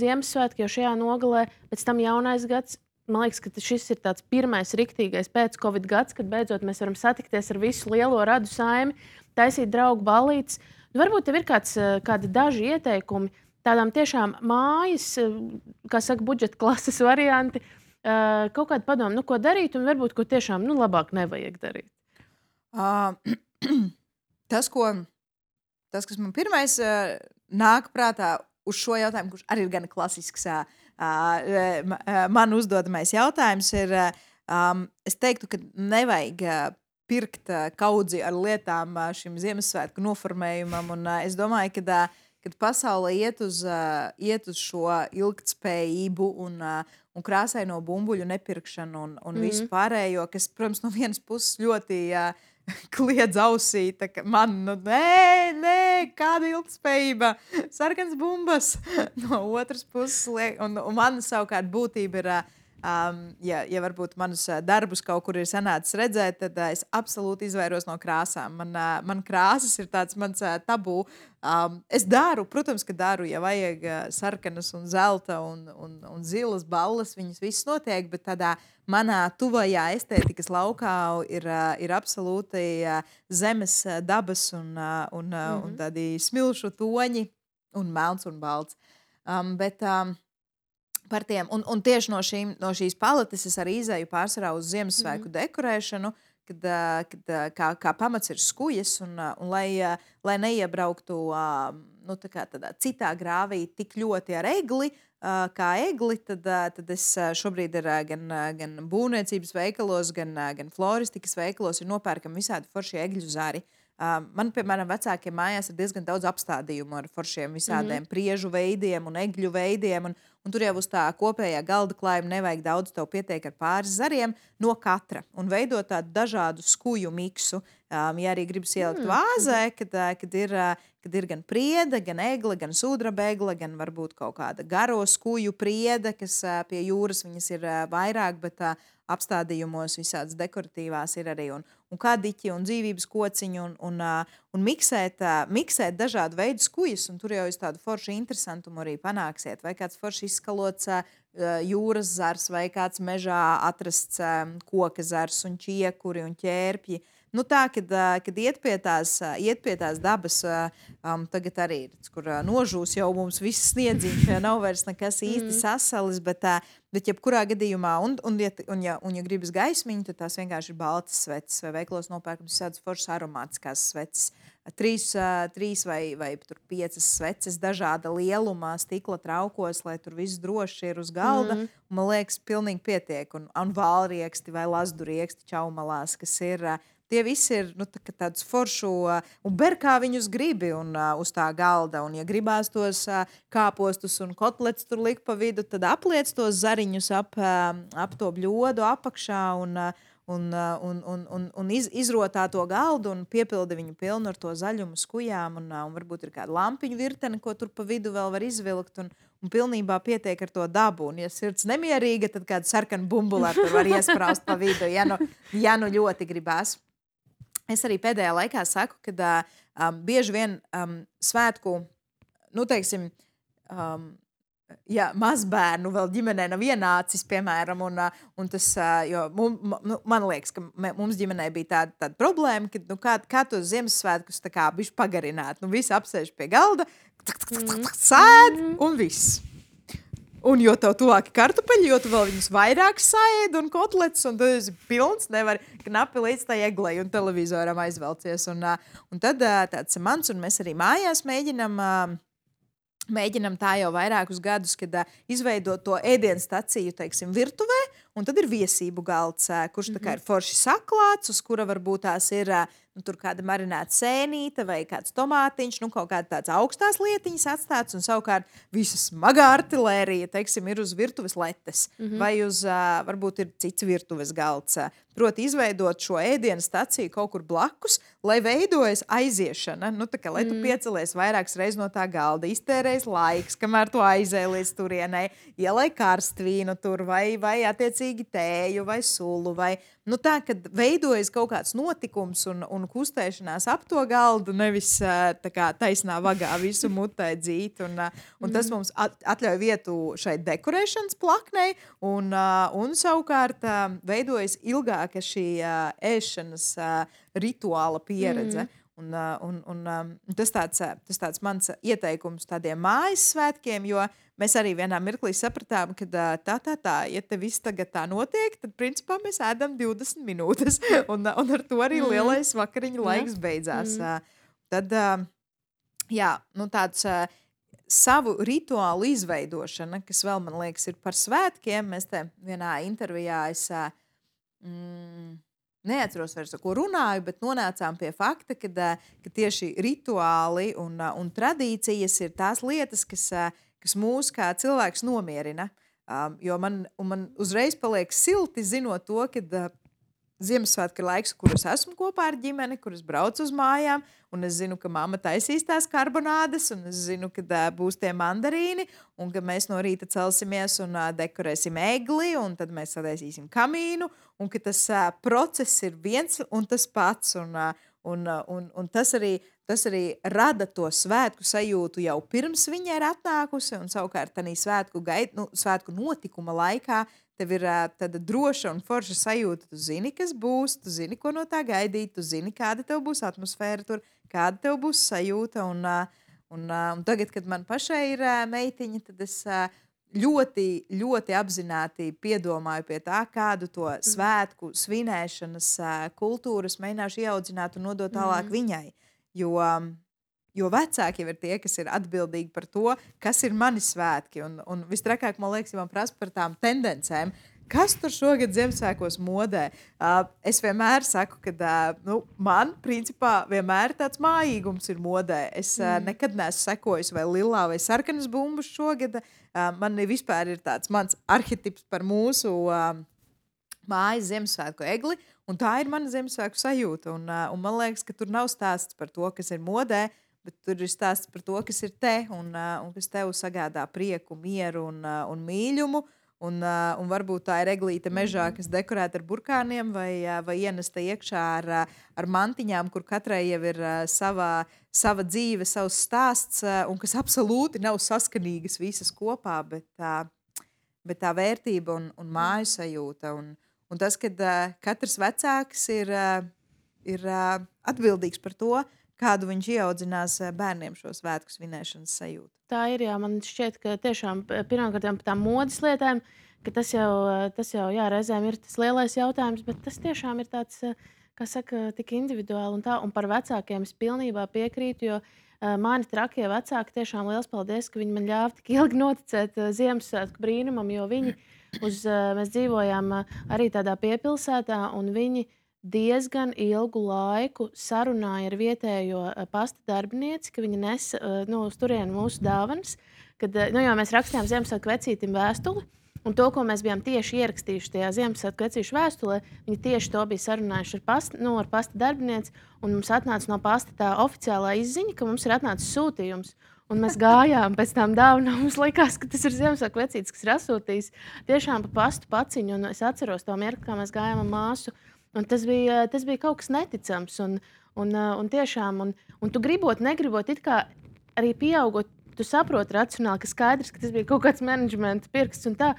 Ziemassvētki jau šajā nogalē, pēc tam jaunais gads. Man liekas, ka šis ir tāds pirmais riktīgais pēc-covid gads, kad beidzot mēs varam satikties ar visu lielo radu saimi, taisīt draugu ballītes. Varbūt tev ir kādi daži ieteikumi tādām tiešām mājas, kā saka, budžeta klases varianti, kaut kādu padomu, ko darīt, un varbūt ko tiešām labāk nevajag darīt. Tas, kas man pirmais nāk prātā uz šo jautājumu, kurš arī ir gan klasisks, man uzdodamais jautājums ir, es teiktu, ka nevajag pirkt kaudzi ar lietām šim Ziemassvētku noformējumam, un es domāju, kad pasaule iet uz šo ilgtspējību un krāsaino bumbuļu nepirkšanu un visu pārējo, kas, protams, no vienas puses ļoti kliedz ausī, tā kā man, nē, kāda ilgtspējība, sarkans bumbas no otras puses liek, un man savukārt būtība ir, ja varbūt manus darbus kaut kur ir sanācis redzēt, tad es absolūti izvairos no krāsām. Man krāsas ir tāds mans tabū. Es daru, protams, ka daru, ja vajag sarkanas un zelta un zilas balles, viņas viss notiek, bet tādā manā tuvajā estētikas laukā ir absolūti zemes dabas un tādi smilšu toņi un melns un balts. Bet par tiem, un tieši no šīs paletes es arī izēju pārsvarā uz Ziemassvētku dekorēšanu, kad kā pamats ir skujas, un lai neiebrauktu tādā citā grāvī tik ļoti ar egli, kā egli, tad es šobrīd ir gan būvniecības veikalos, gan floristikas veikalos ir nopērkami visādi forši egļu zari. Man, piemēram, vecākiem mājās ir diezgan daudz apstādījumu ar foršiem visādiem priežu veidiem un egļu veidiem, un tur jau uz tā kopējā galda klājuma nevajag daudz, tev pietiek ar pāris zariem no katra un veidot tādu dažādu skuju miksu. Ja arī gribas ielikt vāzē, kad ir gan priede, gan egle, gan sudraba egle, gan varbūt kaut kāda garo skuju priede, kas pie jūras viņas ir vairāk, bet apstādījumos visādas dekoratīvās ir arī un kadiķi un dzīvības kociņi un miksēt dažādu veidu skujas, un tur jau es tādu foršu interesantumu arī panāksiet. Vai kāds forši izskalots jūras zars, vai kāds mežā atrasts koka zars un čiekuri un ķērpji. Nu tā, kad iet pie tās dabas, tagad arī ir, kur nožūs jau mums viss sniedziņš, ja nav vairs nekas īsti sasalis, bet jebkurā gadījumā, ja gribas gaismiņu, tad tās vienkārši ir baltas sveces, vai veiklos nopērkams tādas foršas aromātiskās sveces. 3 vai 5 sveces dažāda lielumā, stikla traukos, lai tur viss droši ir uz galda, un man liekas, pilnīgi pietiek, un valrieksti vai lazdurieksti čaumalās, kas ir... Tie visi ir tādus foršu, un ber kā viņus gribi uz tā galda. Un, ja gribās tos kāpostus un kotlets tur likt pa vidu, tad apliec tos zariņus ap to bļodu apakšā un izrotā to galdu un piepildi viņu pilnu ar to zaļumu skujām. Un varbūt ir kāda lampiņu virtene, ko tur pa vidu vēl var izvilkt. Un pilnībā pietiek ar to dabu. Un, ja sirds nemierīga, tad kādu sarkanu bumbulā tur var iespraust pa vidu, ja nu ļoti gribās. Es arī pēdējā laikā saku, ka bieži vien svētku, teiksim, ja mazbērnu vēl ģimenē nav ienācis, piemēram, un tas, jo man liekas, ka mums ģimenē bija tāda problēma, ka kā tos Ziemassvētkus tā kā bišķi pagarināt. Visi apsēž pie galda, sēd un viss. Un jo tev tuvāki kartupeļi, jo tu vēl viņus vairāk saēd un kotlets, un tad esi pilns, nevar knapi līdz tai eglei un televizoram aizvelcies. Un tad tāds mans, un mēs arī mājās mēģinam tā jau vairākus gadus, kad izveidot to ēdienstaciju, teiksim, virtuvē, un tad ir viesību galds, kurš tā kā ir forši saklāts, uz kura varbūt tās ir tur kāda marinēta sēnīte vai kāds tomātiņš, kaut kāda tāds augstās lietiņas atstāts, un savukārt visa smagā artilērija, teiksim, ir uz virtuves letes, vai uz, varbūt ir cits virtuves galds. Proti izveidot šo ēdienu staciju kaut kur blakus, lai veidojas aiziešana, tā kā, lai tu piecelies vairākas reizes no tā galda, iztērēs laiks, kamēr tu aizēji līdz turienei, ielai karstvīnu tur, vai attiecīgi tēju, vai sulu, vai, tā, kad veidojas kaut kāds notikums un kustēšanās ap to galdu, nevis tā kā taisnā vagā visu mutē dzīt, un tas mums atļauj vietu šai dekorēšanas plaknei, un savukārt veidojas ilgāk šī ēšanas rituāla pieredze. Un tas tāds mans ieteikums tādiem mājas svētkiem, jo mēs arī vienā mirklī sapratām, ka ja te viss tagad tā notiek, tad principā mēs ēdam 20 minūtes, un ar to arī lielais vakariņu laiks beidzās. Tad, tāds savu rituālu izveidošana, kas vēl, man liekas, ir par svētkiem, mēs te vienā intervijā neatceros vairs, ar ko runāju, bet nonācām pie fakta, ka tieši rituāli un tradīcijas ir tās lietas, kas mūs kā cilvēks nomierina. Jo man uzreiz paliek silti zinot to, ka Ziemassvētku ir laiks, kur es esmu kopā ar ģimeni, kur es braucu uz mājām, un es zinu, ka mamma taisīs tās karbonādes, un es zinu, ka būs tie mandarīni, un ka mēs no rīta celsimies un dekorēsim egli, un tad mēs sadaisīsim kamīnu, un ka tas process ir viens un tas pats, un tas arī rada to svētku sajūtu jau pirms viņa ir atnākusi, un savukārt tādā svētku notikuma laikā tev ir tāda droša un forša sajūta. Tu zini, kas būs, tu zini, ko no tā gaidīt, tu zini, kāda tev būs atmosfēra tur, kāda tev būs sajūta. Un tagad, kad man pašai ir meitiņa, tad es ļoti, ļoti apzināti piedomāju pie tā, kādu to svētku svinēšanas kultūras mēģināšu ieaudzināt un nodot tālāk viņai. Jo vecāki jau ir tie, kas ir atbildīgi par to, kas ir mani svētki. Un vistrakāk, man liekas, ja man prasa par tām tendencēm, kas tur šogad Ziemassvētkos modē. Es vienmēr saku, ka man, principā, vienmēr tāds mājīgums ir modē. Es nekad neesmu sekojis vai lilā vai sarkanas bumbas šogad. Man vispār ir tāds mans arhetips par mūsu mājas Ziemassvētku egli, un tā ir mana Ziemassvētku sajūta. Un man liekas, ka tur nav stāsts par to, kas ir modē, bet tur ir stāsts par to, kas ir te un kas tev sagādā prieku, mieru un mīļumu. Un varbūt tā ir eglīte mežā, kas dekorēta ar burkāniem vai ienesta iekšā ar mantiņām, kur katrai jau ir sava dzīve, savs stāsts, un kas absolūti nav saskanīgas visas kopā, bet tā vērtība un māju sajūta. Un tas, kad katrs vecāks ir atbildīgs par to, kādu viņš ieaudzinās bērniem šo svētku svinēšanas sajūtu. Tā ir, jā, man šķiet, ka tiešām pirmkārt par tām modes lietām, ka tas jau jā, reizēm ir tas lielais jautājums, bet tas tiešām ir tāds, kā saka, tik individuāli un par vecākiem es pilnībā piekrītu, jo mani trakie vecāki tiešām liels paldies, ka viņi man ļāva tik ilgi noticēt Ziemassvētku brīnumam, jo mēs dzīvojām arī tādā piepilsētā, un viņi diezgan ilgu laiku sarunāja ar vietējo pasta darbinieci, ka viņi nes uz turieni mūsu dāvanas. Jo mēs rakstījām Ziemassvētku vecītim vēstuli, un to, ko mēs bijām tieši ierakstījuši tajā Ziemassvētku vecīšu vēstulē, viņi tieši to bija sarunājuši ar pasta darbinieci, un mums atnāca no pasta tā oficiālā izziņa, ka mums ir atnācis sūtījums. Un mēs gājām pēc tām dāvanām. Mums likās, ka tas ir Ziemassvētku vecītis, kas ir asūtījis tiešām pa pastu paciņu. Un es atceros to mirkli, kā mēs gājām ar māsu. Un tas bija kaut kas neticams. Un tiešām, un tu gribot, negribot, it kā arī pieaugot, tu saproti racionāli, ka skaidrs, ka tas bija kaut kāds menedžmenta pirksts un tā.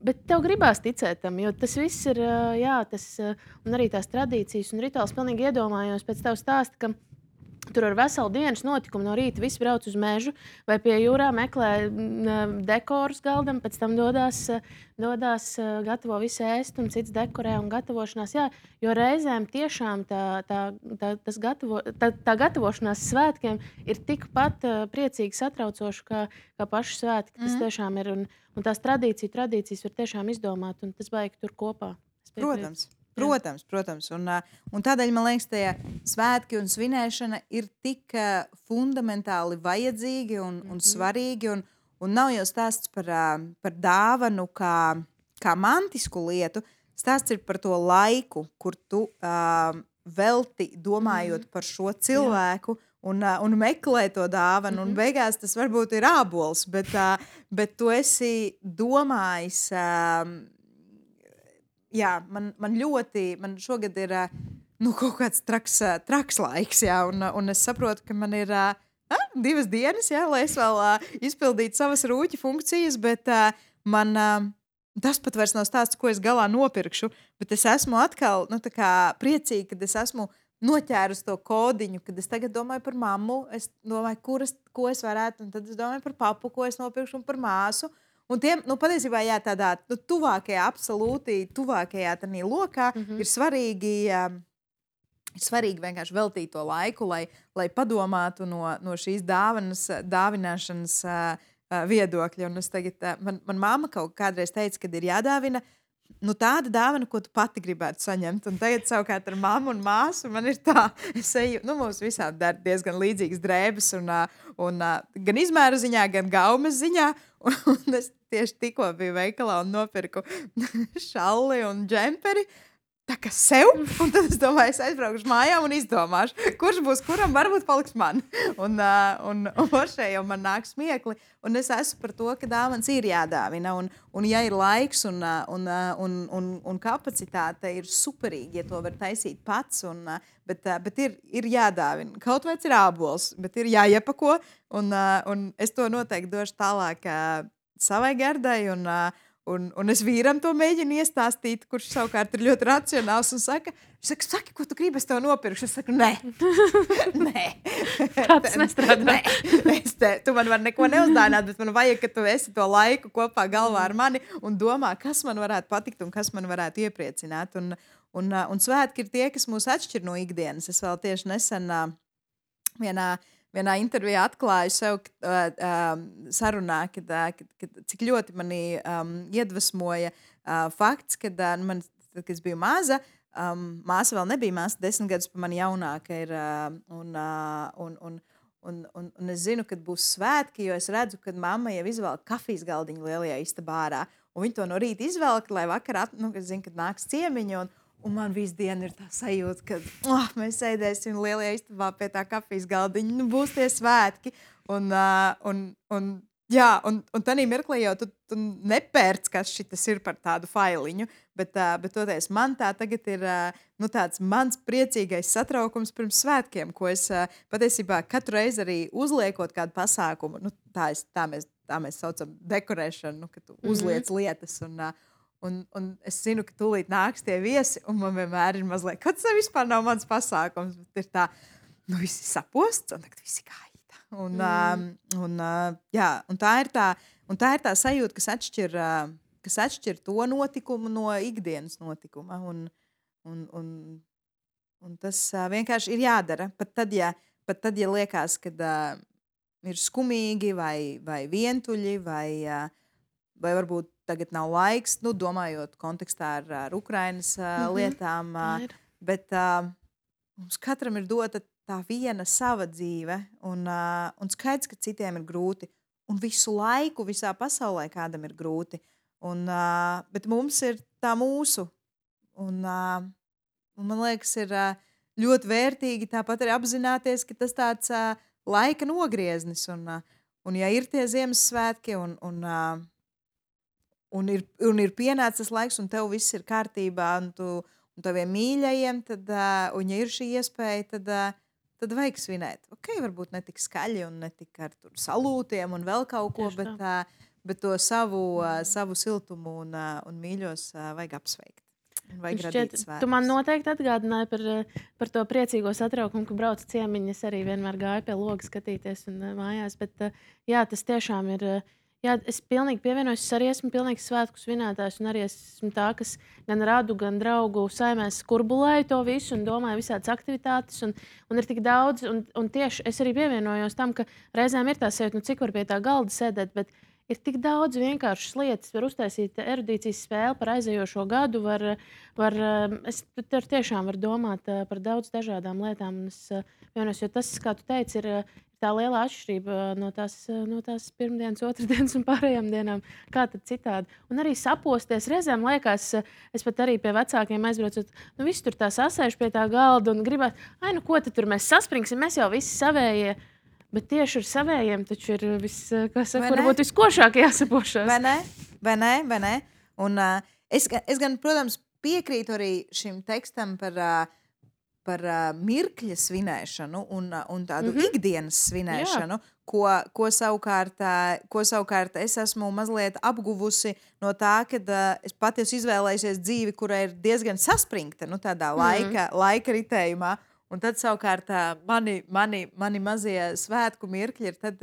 Bet tev gribās ticēt tam, jo tas viss ir, jā, un arī tās tradīcijas un rituāls pilnīgi iedomājos pēc tev stāsta, ka tur ar veselu dienas notikumu no rīta visi brauc uz mežu vai pie jūrā meklē dekorus galdam, pēc tam dodās gatavo visu ēst un cits dekorē un gatavošanās. Jā, jo reizēm tiešām tā gatavošanās svētkiem ir tikpat priecīgi satraucoši kā paši svētki. Tas tiešām ir, un tās tradīcijas var tiešām izdomāt, un tas baigi tur kopā. Protams. Un tādēļ, man liekas, tie svētki un svinēšana ir tik fundamentāli vajadzīgi un svarīgi. Un nav jau stāsts par dāvanu kā mantisku lietu. Stāsts ir par to laiku, kur tu velti domājot par šo cilvēku. Un meklē to dāvanu, un beigās tas varbūt ir ābols, bet tu esi domājis. Jā, man šogad ir kaut kāds traks laiks, jā, un es saprotu, ka man ir 2 dienas, jā, lai es vēl izpildītu savas rūķa funkcijas, bet man tas pat vairs nav stāsts, ko es galā nopirkšu, bet es esmu atkal priecīga, kad es esmu noķērus to kodiņu, kad es tagad domāju par mammu, es domāju, ko es varētu, un tad es domāju par papu, ko es nopirkšu, un par māsu. Un tiem, patiesībā, jā, tādā tuvākajā, absolūti tuvākajā tādā lokā ir svarīgi vienkārši veltīt to laiku, lai padomātu no šīs dāvināšanas viedokļa. Un es tagad, man mamma kādreiz teica, kad ir jādāvina tāda dāvana, ko tu pati gribētu saņemt. Un tagad savukārt ar mammu un māsu man ir tā, es eju, mums visām dar diezgan līdzīgas drēbes un gan izmēru ziņā, gan gaumes ziņā. Un es tieši tikko biju veikalā un nopirku šalli un džemperi. tā kā sev, un tad es domāju, es aizbraukšu mājām un izdomāšu, kurš būs kuram, varbūt paliks man. Un šeit jau man nāk smiekli, un es esmu par to, ka dāvans ir jādāvina, un ja ir laiks un kapacitāte, ir superīgi, ja to var taisīt pats, bet ir jādāvina. Kaut vai ir ābols, bet ir jāiepako, un es to noteikti došu tālāk savai gardai, un es vīram to mēģinu iestāstīt, kurš savukārt ir ļoti racionāls un saka, saki, ko tu gribi, es tev nopirkšu. Es saku, nē. Tas nestrādā. Tu man vari neko neuzdāvināt, bet man vajag, ka tu esi to laiku kopā galvā ar mani un domā, kas man varētu patikt un kas man varētu iepriecināt. Un svētki ir tie, kas mūs atšķir no ikdienas. Es vēl tieši nesen vienā intervijā atklāju sev sarunā, cik ļoti mani iedvesmoja fakts, kad es biju maza, māsa vēl nebija māsa, 10 gadus pa mani jaunāka ir, un es zinu, kad būs svētki, jo es redzu, kad mamma jau izvelk kafijas galdiņu lielajā istabā ārā, un viņi to no rīta izvelk, lai vakar, es zinu, kad nāks ciemiņi, un man visu dienu ir tā sajūta, ka mēs sēdēsim lielajā istabā pie tā kafijas galdiņa, būs tie svētki. Un tādā mirklī jau tu nepērc, kas šitas ir par tādu failiņu, bet toties man tā tagad ir tāds mans priecīgais satraukums pirms svētkiem, ko es patiesībā katru reizi arī uzliekot kādu pasākumu, tā mēs saucam dekorēšanu, ka tu uzliec lietas un es zinu, ka tūlīt nāks tie viesi, un man vienmēr ir mazliet, ka tas vispār nav mans pasākums, bet ir tā, viss ir saposts, un tagad viss ir gaida. Un tā ir tā sajūta, kas atšķir to notikumu no ikdienas notikuma, un tas vienkārši ir jādara, pat tad, ja liekas, kad ir skumīgi vai vientuļi, vai varbūt tagad nav laiks, domājot kontekstā ar Ukrainas lietām, bet mums katram ir dota tā viena sava dzīve, un skaidrs, ka citiem ir grūti, un visu laiku visā pasaulē kādam ir grūti, bet mums ir tā mūsu, un man liekas, ir ļoti vērtīgi tāpat arī apzināties, ka tas tāds laika nogrieznis, un ja ir tie Ziemassvētki, un ir pienācis laiks, un tev viss ir kārtībā, un taviem mīļajiem, un ja ir šī iespēja, tad vajag svinēt. Varbūt ne tik skaļi un ne tik ar salūtiem un vēl kaut ko, bet to savu siltumu un mīļos vajag apsveikt. Vajag radīt svētkus. Tu man noteikti atgādināji par to priecīgo satraukumu, ka brauc ciemiņi. Es arī vienmēr gāju pie loga skatīties un mājās, bet jā, tas tiešām ir... Jā, es pilnīgi pievienojos, es arī esmu pilnīgs svētku svinētājs, un arī esmu tā, kas gan radu, gan draugu saimēs kurbulēju to visu un domāju visādas aktivitātes, un ir tik daudz, un tieši es arī pievienojos tam, ka reizēm ir tā sajūta, cik var pie tā galda sēdēt, bet ir tik daudz vienkāršas lietas, var uztaisīt erudīcijas spēli par aizejošo gadu, es tiešām varu domāt par daudz dažādām lietām, un es pievienojos, jo tas, kā tu teici, ir tā liela atšķirība no tās pirmdienas, otrdienas un pārējām dienām. Kā tad citādi? Un arī saposties. Reizēm liekas, es pat arī pie vecākiem aizbraucot, visi tur tā sasēž pie tā galda un gribās, ko tad tur mēs saspringsim, mēs jau visi savējie. Bet tieši ar savējiem taču ir varbūt viskošāk jāsapošās. Vai ne? Un es gan, protams, piekrītu arī šim tekstam par mirkļa svinēšanu un tādu ikdienas svinēšanu, ko savukārt es esmu mazliet apguvusi no tā, kad es pati esmu izvēlējusies dzīvi, kura ir diezgan saspringta, tādā laika ritējumā. Un tad savukārt mani mazie svētku mirkļi ir tad,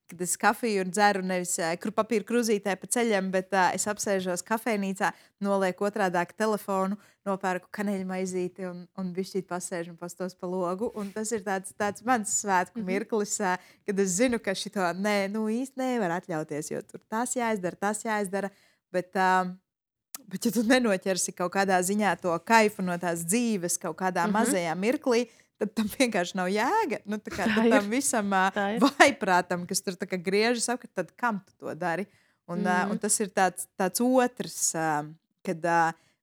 kad es kafiju dzeru nevis papīra krūzītē pa ceļam, bet es apsēžos kafejnīcā, nolieku otrādāk telefonu, nopērku kaneļu maizīti un bišķīt pasēžu un pastos pa logu. Un tas ir tāds mans svētku mirklis, kad es zinu, ka šito īsti nevar atļauties, jo tur tas jāizdara. Bet ja tu nenoķersi kaut kādā ziņā to kaifu no tās dzīves kaut kādā mazajā mirklī, tad tam vienkārši nav jēga. Tam visam vaiprātam, kas tur griežas apkārt, tad kam tu to dari? Un tas ir tāds otrs, kad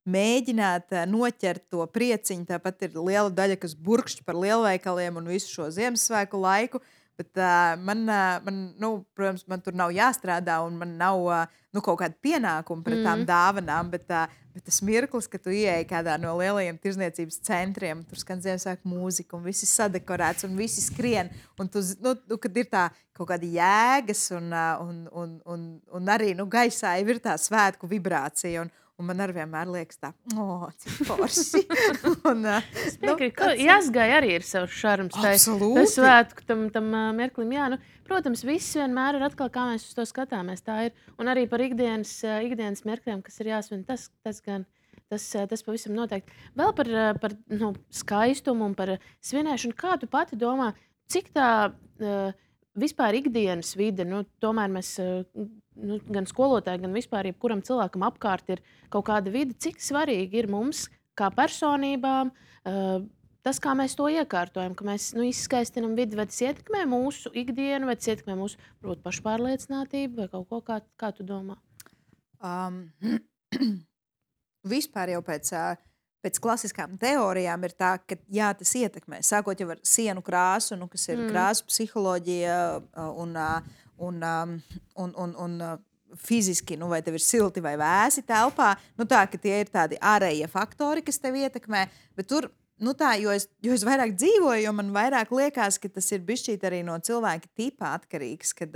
mēģināt noķert to prieciņu. Tāpat ir liela daļa, kas burkšķi par lielveikaliem un visu šo Ziemassvētku laiku. Bet protams, man tur nav jāstrādā un man nav kaut kāda pienākuma pret tām dāvanām. Bet tas mirklis, ka tu ieej kādā no lielajiem tirzniecības centriem, tur skan Ziemassvētku mūzika un viss ir sadekorēts un visi skrien. Un kad ir tā kaut kāda jēgas un arī gaisā ir tā svētku vibrācija. Un man arī vienmēr liekas, cik forši. Jāsgai arī ir savs šarms. Absolūti. Tas svētku tam mirklim. Jā, protams, viss vienmēr ir atkal, kā mēs uz to skatāmies. Tā ir. Un arī par ikdienas mirkļiem, kas ir jāsvin, tas gan. Tas pavisam noteikti. Vēl par skaistumu un par svinēšanu. Kā tu pati domā, cik tā vispār ikdienas vide, tomēr mēs gan skolotāji, gan vispār jebkuram cilvēkam apkārt ir kaut kāda vide, cik svarīgi ir mums kā personībām tas, kā mēs to iekārtojam, ka mēs izskaistinam vidi, vai tas ietekmē mūsu ikdienu, vai tas ietekmē mūsu pašpārliecinātību vai kaut ko, kā tu domā? Vispār jau pēc klasiskām teorijām ir tā, ka jā, tas ietekmē. Sākot jau ar sienu krāsu, kas ir krāsu psiholoģija un fiziski, vai tev ir silti vai vēsi telpā. Tā, ka tie ir tādi ārējie faktori, kas tev ietekmē. Bet tur, jo es vairāk dzīvoju, jo man vairāk liekas, ka tas ir bišķīt arī no cilvēka tipa atkarīgs, kad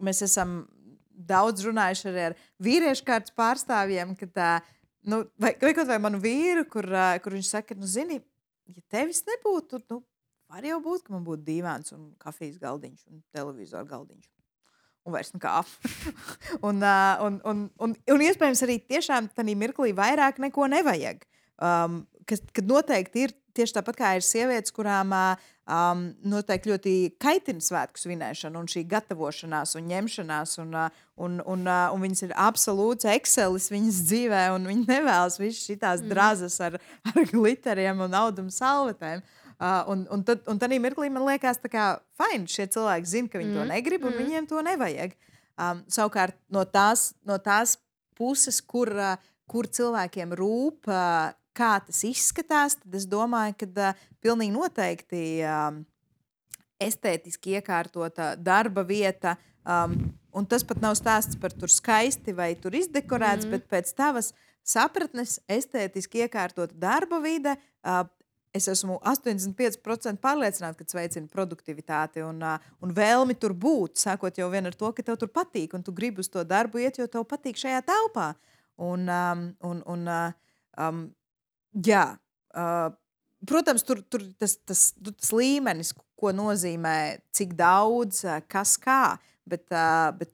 mēs esam daudz runājuši arī ar vīriešu kārtas pārstāvjiem, kad vai kaut vai manu vīru, kur viņš saka, zini, ja tevis nebūtu, var jau būt, ka man būtu dīvāns un kafijas galdiņš un televizoru galdiņš. Un vairs nekā. un iespējams arī tiešām tādā mirklī vairāk neko nevajag. Kad noteikti ir tieši tāpat kā ir sievietes, kurām noteikti ļoti kaitina svētku svinēšana un šī gatavošanās un ņemšanās un viņas ir absolūts excelis viņas dzīvē un viņi nevēlas visas šitās drazas ar gliteriem un audumu salvetēm. Un tad mirklī man liekas tā kā fine, šie cilvēki zina, ka viņi to negrib un viņiem to nevajag. Savukārt no tās puses, kur cilvēkiem rūp, kā tas izskatās, tad es domāju, ka pilnīgi noteikti estētiski iekārtota darba vieta, un tas pat nav stāsts par tur skaisti vai tur izdekorēts, bet pēc tavas sapratnes estētiski iekārtota darba vide, es esmu 85% pārliecināta, ka tas veicina produktivitāti un vēlmi tur būt, sākot jau vien ar to, ka tev tur patīk, un tu gribi uz to darbu iet, jo tev patīk šajā telpā. Jā, protams, tur tas līmenis, ko nozīmē, cik daudz, kas kā, bet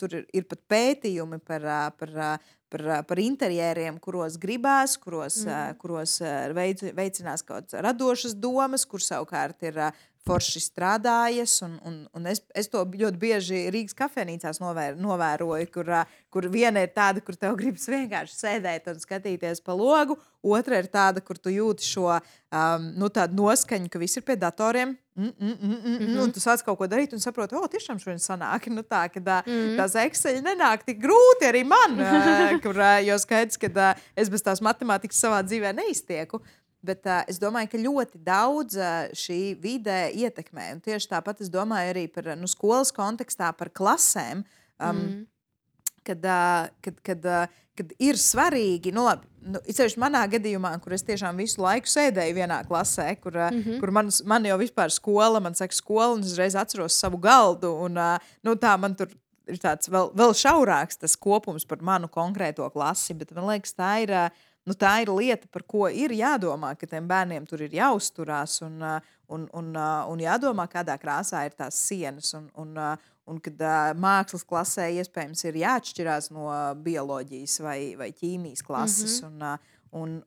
tur ir pat pētījumi par interjeriem, kuros gribās, kuros veicinās kaut kādas radošas domas, kur savukārt ir forši strādājas, un es to ļoti bieži Rīgas kafejnīcās novēroju, kur viena ir tāda, kur tev gribas vienkārši sēdēt un skatīties pa logu, otra ir tāda, kur tu jūti šo tādu noskaņu, ka viss ir pie datoriem, un tu sāc kaut ko darīt un saproti, tiešām šodien sanāk, tās Excel nenāk tik grūti arī man, jo skaidrs, ka es bez tās matemātikas savā dzīvē neiztieku. Bet es domāju, ka ļoti daudz šī vide ietekmē. Un tieši tāpat es domāju arī par skolas kontekstā, par klasēm, kad ir svarīgi, īpaši manā gadījumā, kur es tiešām visu laiku sēdēju vienā klasē, kur man jau vispār skola, man saka skola, un es reiz atceros savu galdu, un tā man tur ir tāds vēl šaurāks tas kopums par manu konkrēto klasi, bet man liekas, tā ir lieta, par ko ir jādomā, ka tiem bērniem tur ir jāuzturās un jādomā, kādā krāsā ir tās sienas. Un kad mākslas klasē iespējams ir jāatšķirās no bioloģijas vai ķīmijas klases. Un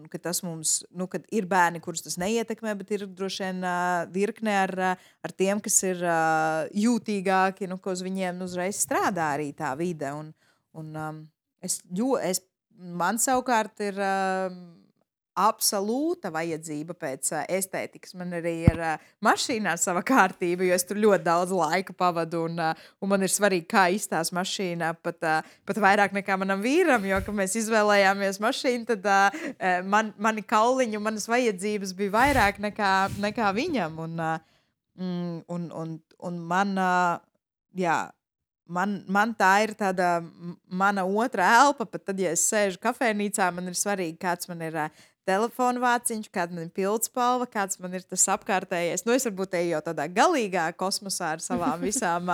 ka tas mums, kad ir bērni, kurus tas neietekmē, bet ir droši vien virkne ar tiem, kas ir jūtīgāki, ko uz viņiem uzreiz strādā arī tā vide. Man savukārt ir absolūta vajadzība pēc estētikas. Man arī ir mašīnā sava kārtība, jo es tur ļoti daudz laika pavadu. Un man ir svarīgi, kā izstāsta mašīnā, pat vairāk nekā manam vīram. Jo, kad mēs izvēlējāmies mašīnu, tad mani kauliņi un manas vajadzības bija vairāk nekā viņam. Un man, jā. Man tā ir tāda mana otra elpa, pat tad, ja es sēžu kafejnīcā, man ir svarīgi, kāds man ir telefona vāciņš, kāda man ir pildspalva, kāds man ir tas apkārtējais. Nu, es varbūt eju jau tādā galīgā kosmosā ar savām visām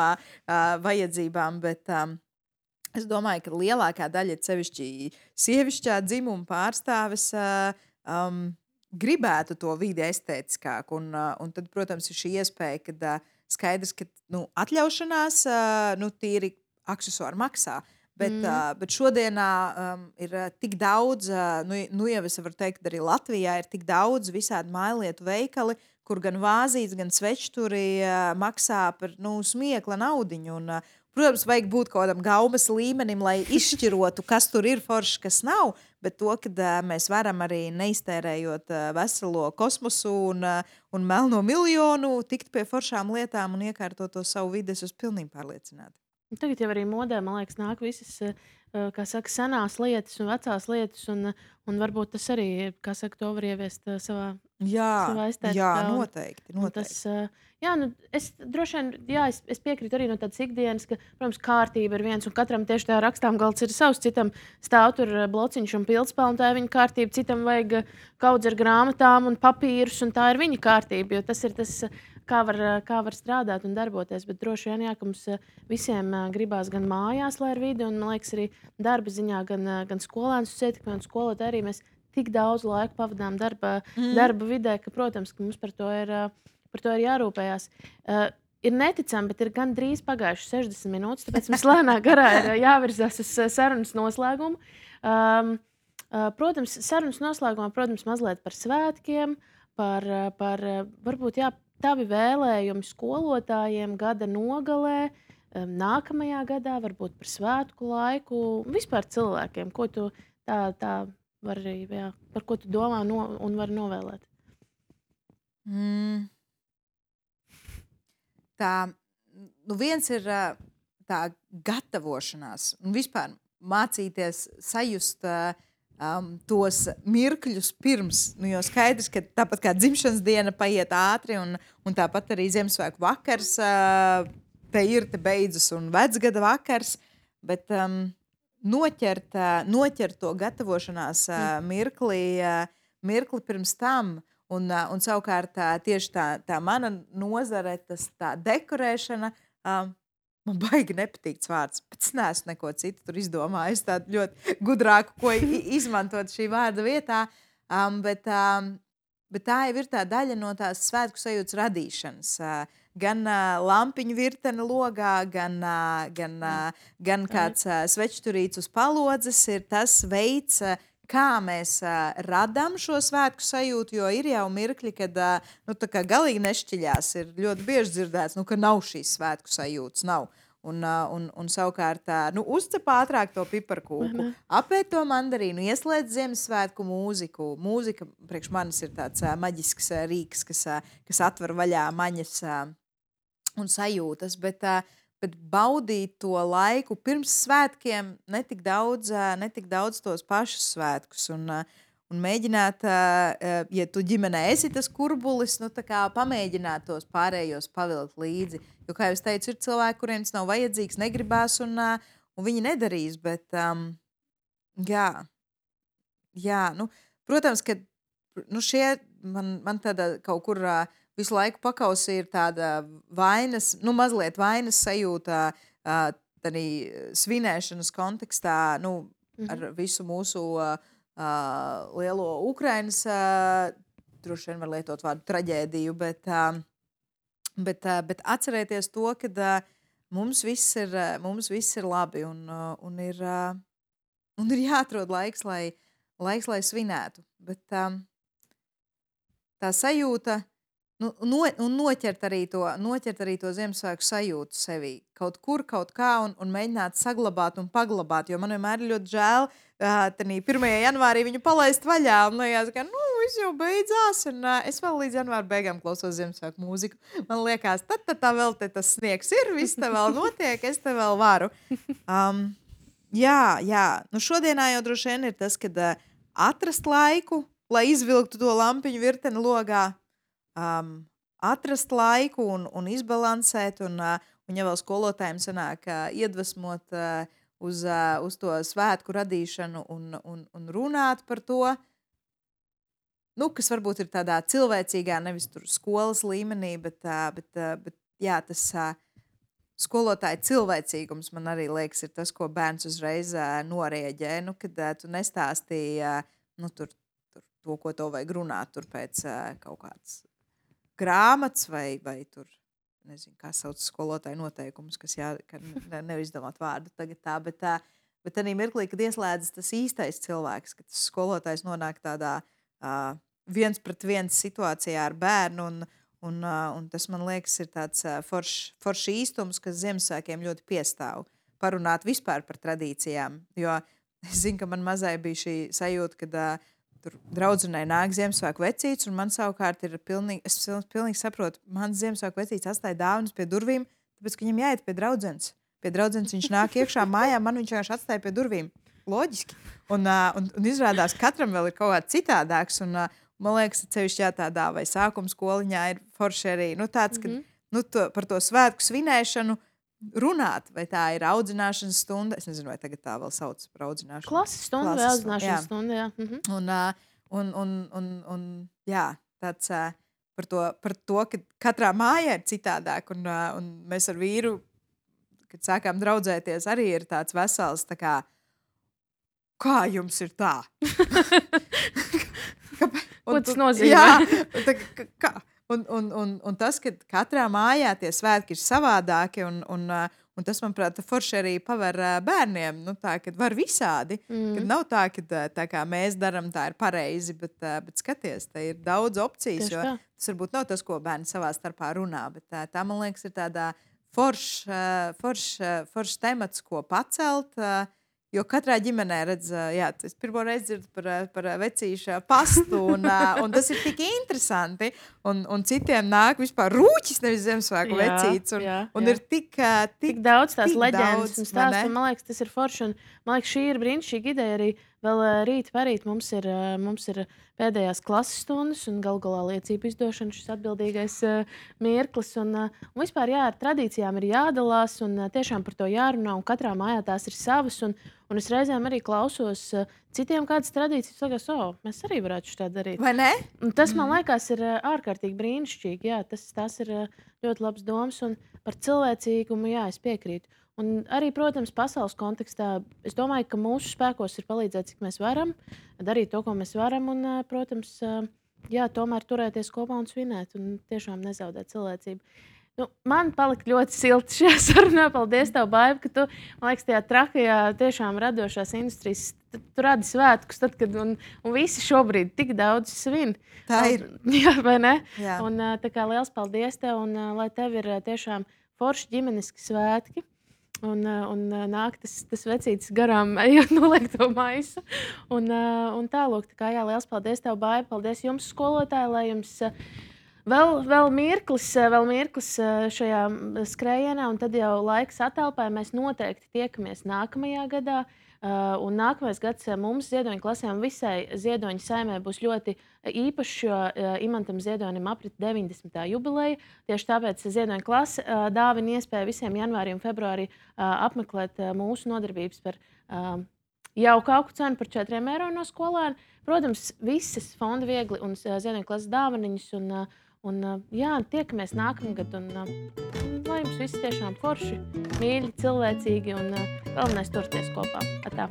vajadzībām, bet es domāju, ka lielākā daļa, sevišķi sievišķā dzimuma pārstāves, gribētu to vidi estētiskāku. Un tad, protams, ir šī iespēja, kad skaidrs, ka atļaušanās tīri aksesuāri maksā. Bet šodienā ir tik daudz, jau es varu teikt, arī Latvijā ir tik daudz visādi mājlietu veikali, kur gan vāzītes, gan svečturi maksā par smiekla naudiņu. Protams, vajag būt kaut kādam gaumas līmenim, lai izšķirotu, kas tur ir forši, kas nav. Bet to, ka mēs varam arī neiztērējot veselo kosmosu un melno miljonu, tikt pie foršām lietām un iekārtot to savu vidi, es esmu pilnīgi pārliecināta. Tagad jau arī modē, man liekas, nāk visas, kā saka, senās lietas un vecās lietas, un varbūt tas arī, kā saka, to var ieviest savā estētikā. Jā, noteikti. Tas, es droši vien, es piekrītu arī no tādas ikdienas, ka, protams, kārtība ir viens, un katram tieši tā rakstām galds ir savs, citam stāv tur blociņš un pildspalva, un tā ir viņa kārtība, citam vajag kaudz ar grāmatām un papīrus, un tā ir viņa kārtība, jo tas ir tas, kā var strādāt un darboties. Bet droši vien, ka mums visiem gribās gan mājās, lai ir vidi, un, man liekas, arī darba ziņā, gan skolēnus ietekmē, un skolotāji arī mēs tik daudz laika pavadām darba vidē, ka, protams, ka mums par to ir jārūpējās. Ir neticami, bet ir gan drīz pagājušas 60 minūtes, tāpēc mums lēnā garā ir jāvirzās uz sarunas noslēgumu. Protams, sarunas noslēgumā, mazliet par svētkiem, par varbūt, tavi vēlējumi skolotājiem gada nogalē, nākamajā gadā, varbūt par svētku laiku, vispār cilvēkiem, ko tu tā var arī, par ko tu domā un vari novēlēt? Tā, viens ir tā gatavošanās un vispār mācīties sajust tos mirkļus pirms, jo skaidrs, ka tāpat kā dzimšanas diena paiet ātri un tāpat arī Ziemassvētku vakars te ir, te beidzas un vecgada vakars, bet noķert to gatavošanās mirkli pirms tam un savukārt tieši tā mana nozare, tā dekorēšana, man baigi nepatīk vārds, bet es neesmu neko citu tur izdomājis, tādu ļoti gudrāku, ko izmantot šī vārda vietā, bet tā jau ir tā daļa no tās svētku sajūtas radīšanas. Gan lampiņu virtene logā, gan kāds svečturīts uz palodzes ir tas veids, kā mēs radām šo svētku sajūtu, jo ir jau mirkļi, kad tā kā galīgi nešķiļās, ir ļoti bieži dzirdēts, ka nav šīs svētku sajūtas, nav. Un savukārt, uzcep ātrāk to piparkūku, apēd to mandarīnu, ieslēdz Ziemassvētku mūziku. Mūzika priekš manis ir tāds maģisks rīks, kas atver vaļā maņas un sajūtas, bet baudīt to laiku pirms svētkiem, netik daudz tos pašus svētkus. Un mēģināt, ja tu ģimenē esi tas kurbulis, tā kā pamēģināt tos pārējos pavilkt līdzi. Jo, kā jau es teicu, ir cilvēki, kuriem tas nav vajadzīgs, negribās, un viņi nedarīs. Bet, protams, ka šie man tāda kaut kur visu laiku pakausi ir tāda vainas, mazliet vainas sajūta arī svinēšanas kontekstā, ar visu mūsu lielo Ukrainas, droši vien var lietot vārdu traģēdiju, bet atcerēties to, ka mums viss ir labi un ir jāatrod laiks, lai svinētu. Bet tā sajūta, un noķert arī to Ziemassvētku sajūtu sevī. Kaut kur, kaut kā, un mēģināt saglabāt un paglabāt, jo man vienmēr ir ļoti žēl, tanī 1. janvārī viņu palaist vaļā, un liekas, ka, viss jau beidzās, un es vēl līdz janvāra beigām klausos Ziemassvētku mūziku. Man liekas, tā vēl te tas sniegs ir, viss te vēl notiek, es te vēl varu. Jā. Šodienā jau droši vien ir tas, kad atrast laiku, lai izvilktu to lampiņu virteni logā, atrast laiku un izbalansēt, un ja vēl skolotājiem sanāk iedvesmot uz to svētku radīšanu un runāt par to, kas varbūt ir tādā cilvēcīgā, nevis tur skolas līmenī, bet jā, tas skolotāja cilvēcīgums man arī liekas ir tas, ko bērns uzreiz norieģē, kad tu nestāstīji tur to, ko tev vajag runāt tur pēc kaut kāds grāmatas vai tur, nezinu, kā sauc skolotāju noteikumus, kas nevar izdomāt vārdu tagad tā, bet tādā mirklī, kad ieslēdzas tas īstais cilvēks, kad tas skolotājs nonāk tādā 1-pret-1 situācijā ar bērnu, un tas, man liekas, ir tāds foršs īstums, kas Ziemassvētkiem ļoti piestāv. Parunāt vispār par tradīcijām, jo es zinu, ka man mazai bija šī sajūta, kad tur draudzenei nāk Ziemassvētku vecīts, un man savukārt ir es pilnīgi saprotu, mans Ziemassvētku vecīts atstāja dāvanas pie durvīm, tāpēc, ka viņam jāiet pie draudzenes. Pie draudzenes viņš nāk iekšā mājā, man viņš vienkārši atstāja pie durvīm. Loģiski. Un izrādās, katram vēl ir kaut kā citādāks, un man liekas, cevišķi tādā vai sākuma skoliņā ir forši arī, tāds, ka par to svētku svinēšanu runāt, vai tā ir audzināšanas stunda. Es nezinu, vai tagad tā vēl sauc par audzināšanu. Klases stunda vai audzināšanas stunda, jā. Un jā, tāds par to, ka katrā mājā ir citādāk, un mēs ar vīru, kad sākām draudzēties, arī ir tāds vesels, tā kā jums ir tā? Ko tas nozīmē? Jā, kā? Un tas, ka katrā mājā tie svētki ir savādāki, un tas, manuprāt, forši arī paver bērniem, kad var visādi, kad nav tā kā mēs daram, tā ir pareizi, bet skaties, te ir daudz opcijas, jo tas varbūt nav tas, ko bērni savā starpā runā, bet tā, man liekas, ir tādā foršs temats, ko pacelt, jo katrā ģimenē redz, es pirmo reizi dzirdu par vecīša pastu, un tas ir tik interesanti, un citiem nāk vispār rūķis, nevis Ziemassvētku vecīts, un ir tik daudz tās leģendas un stāstu, un man liekas, tas ir forši, un man liekas, šī ir brīnišķīga ideja arī. Vēl rīt parīt mums ir pēdējās klases stundas un galā liecību izdošana, šis atbildīgais mirklis. Un vispār ar tradīcijām ir jādalās un tiešām par to jārunā, un katrā mājā tās ir savas. Un es reizēm arī klausos citiem kādas tradīcijas, sagās, mēs arī varētu šo tā darīt. Vai ne? Un tas, man liekas, ir ārkārtīgi brīnišķīgi. Jā, tās ir ļoti labs domas, un par cilvēcīgumu, jā, es piekrītu. Un arī, protams, pasaules kontekstā, es domāju, ka mūsu spēkos ir palīdzēt, cik mēs varam, darīt to, ko mēs varam, un, protams, tomēr turēties kopā un svinēt, un tiešām nezaudēt cilvēcību. Man palika ļoti silti šajā sarunā. Paldies tev, Baiba, ka tu, man liekas, tajā trakajā tiešām radošās industrijas, tu radi svētkus, tad, kad, un visi šobrīd tik daudz svin. Tā ir. Jā, vai ne? Jā. Un tā kā liels paldies tev, un lai tev ir tiešām forši ģimeniski svētki. Un nāk tas vecītis garām, ejot noliek to maisu. Un tālūk, tā kā liels paldies tev, Baiba, paldies jums, skolotāji, lai jums vēl mirklis šajā skrējienā, un tad jau laiks atelpai. Mēs noteikti tiekamies nākamajā gadā. Un nākamais gads mums Ziedoņa klasēm visai Ziedoņa saimē būs ļoti īpašs, jo Imantam Ziedonim aprit 90. jubileja. Tieši tāpēc Ziedoņa klase dāvina iespēju visiem janvārī un februārī apmeklēt mūsu nodarbības par jauku auku cenu par 4 eiro no skolēna. Protams, visas Fonda Viegli un Ziedoņa klases dāvaniņas. Un tiekamies nākamgad, un lai jums viss tiešām forši, mīļi, cilvēcīgi, un galvenais turēties kopā. Atā.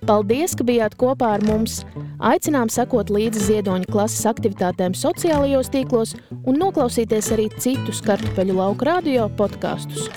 Paldies, ka bijāt kopā ar mums! Aicinām sekot līdzi Ziedoņa klases aktivitātēm sociālajos tīklos un noklausīties arī citus Kartupeļu lauku radio podkastus.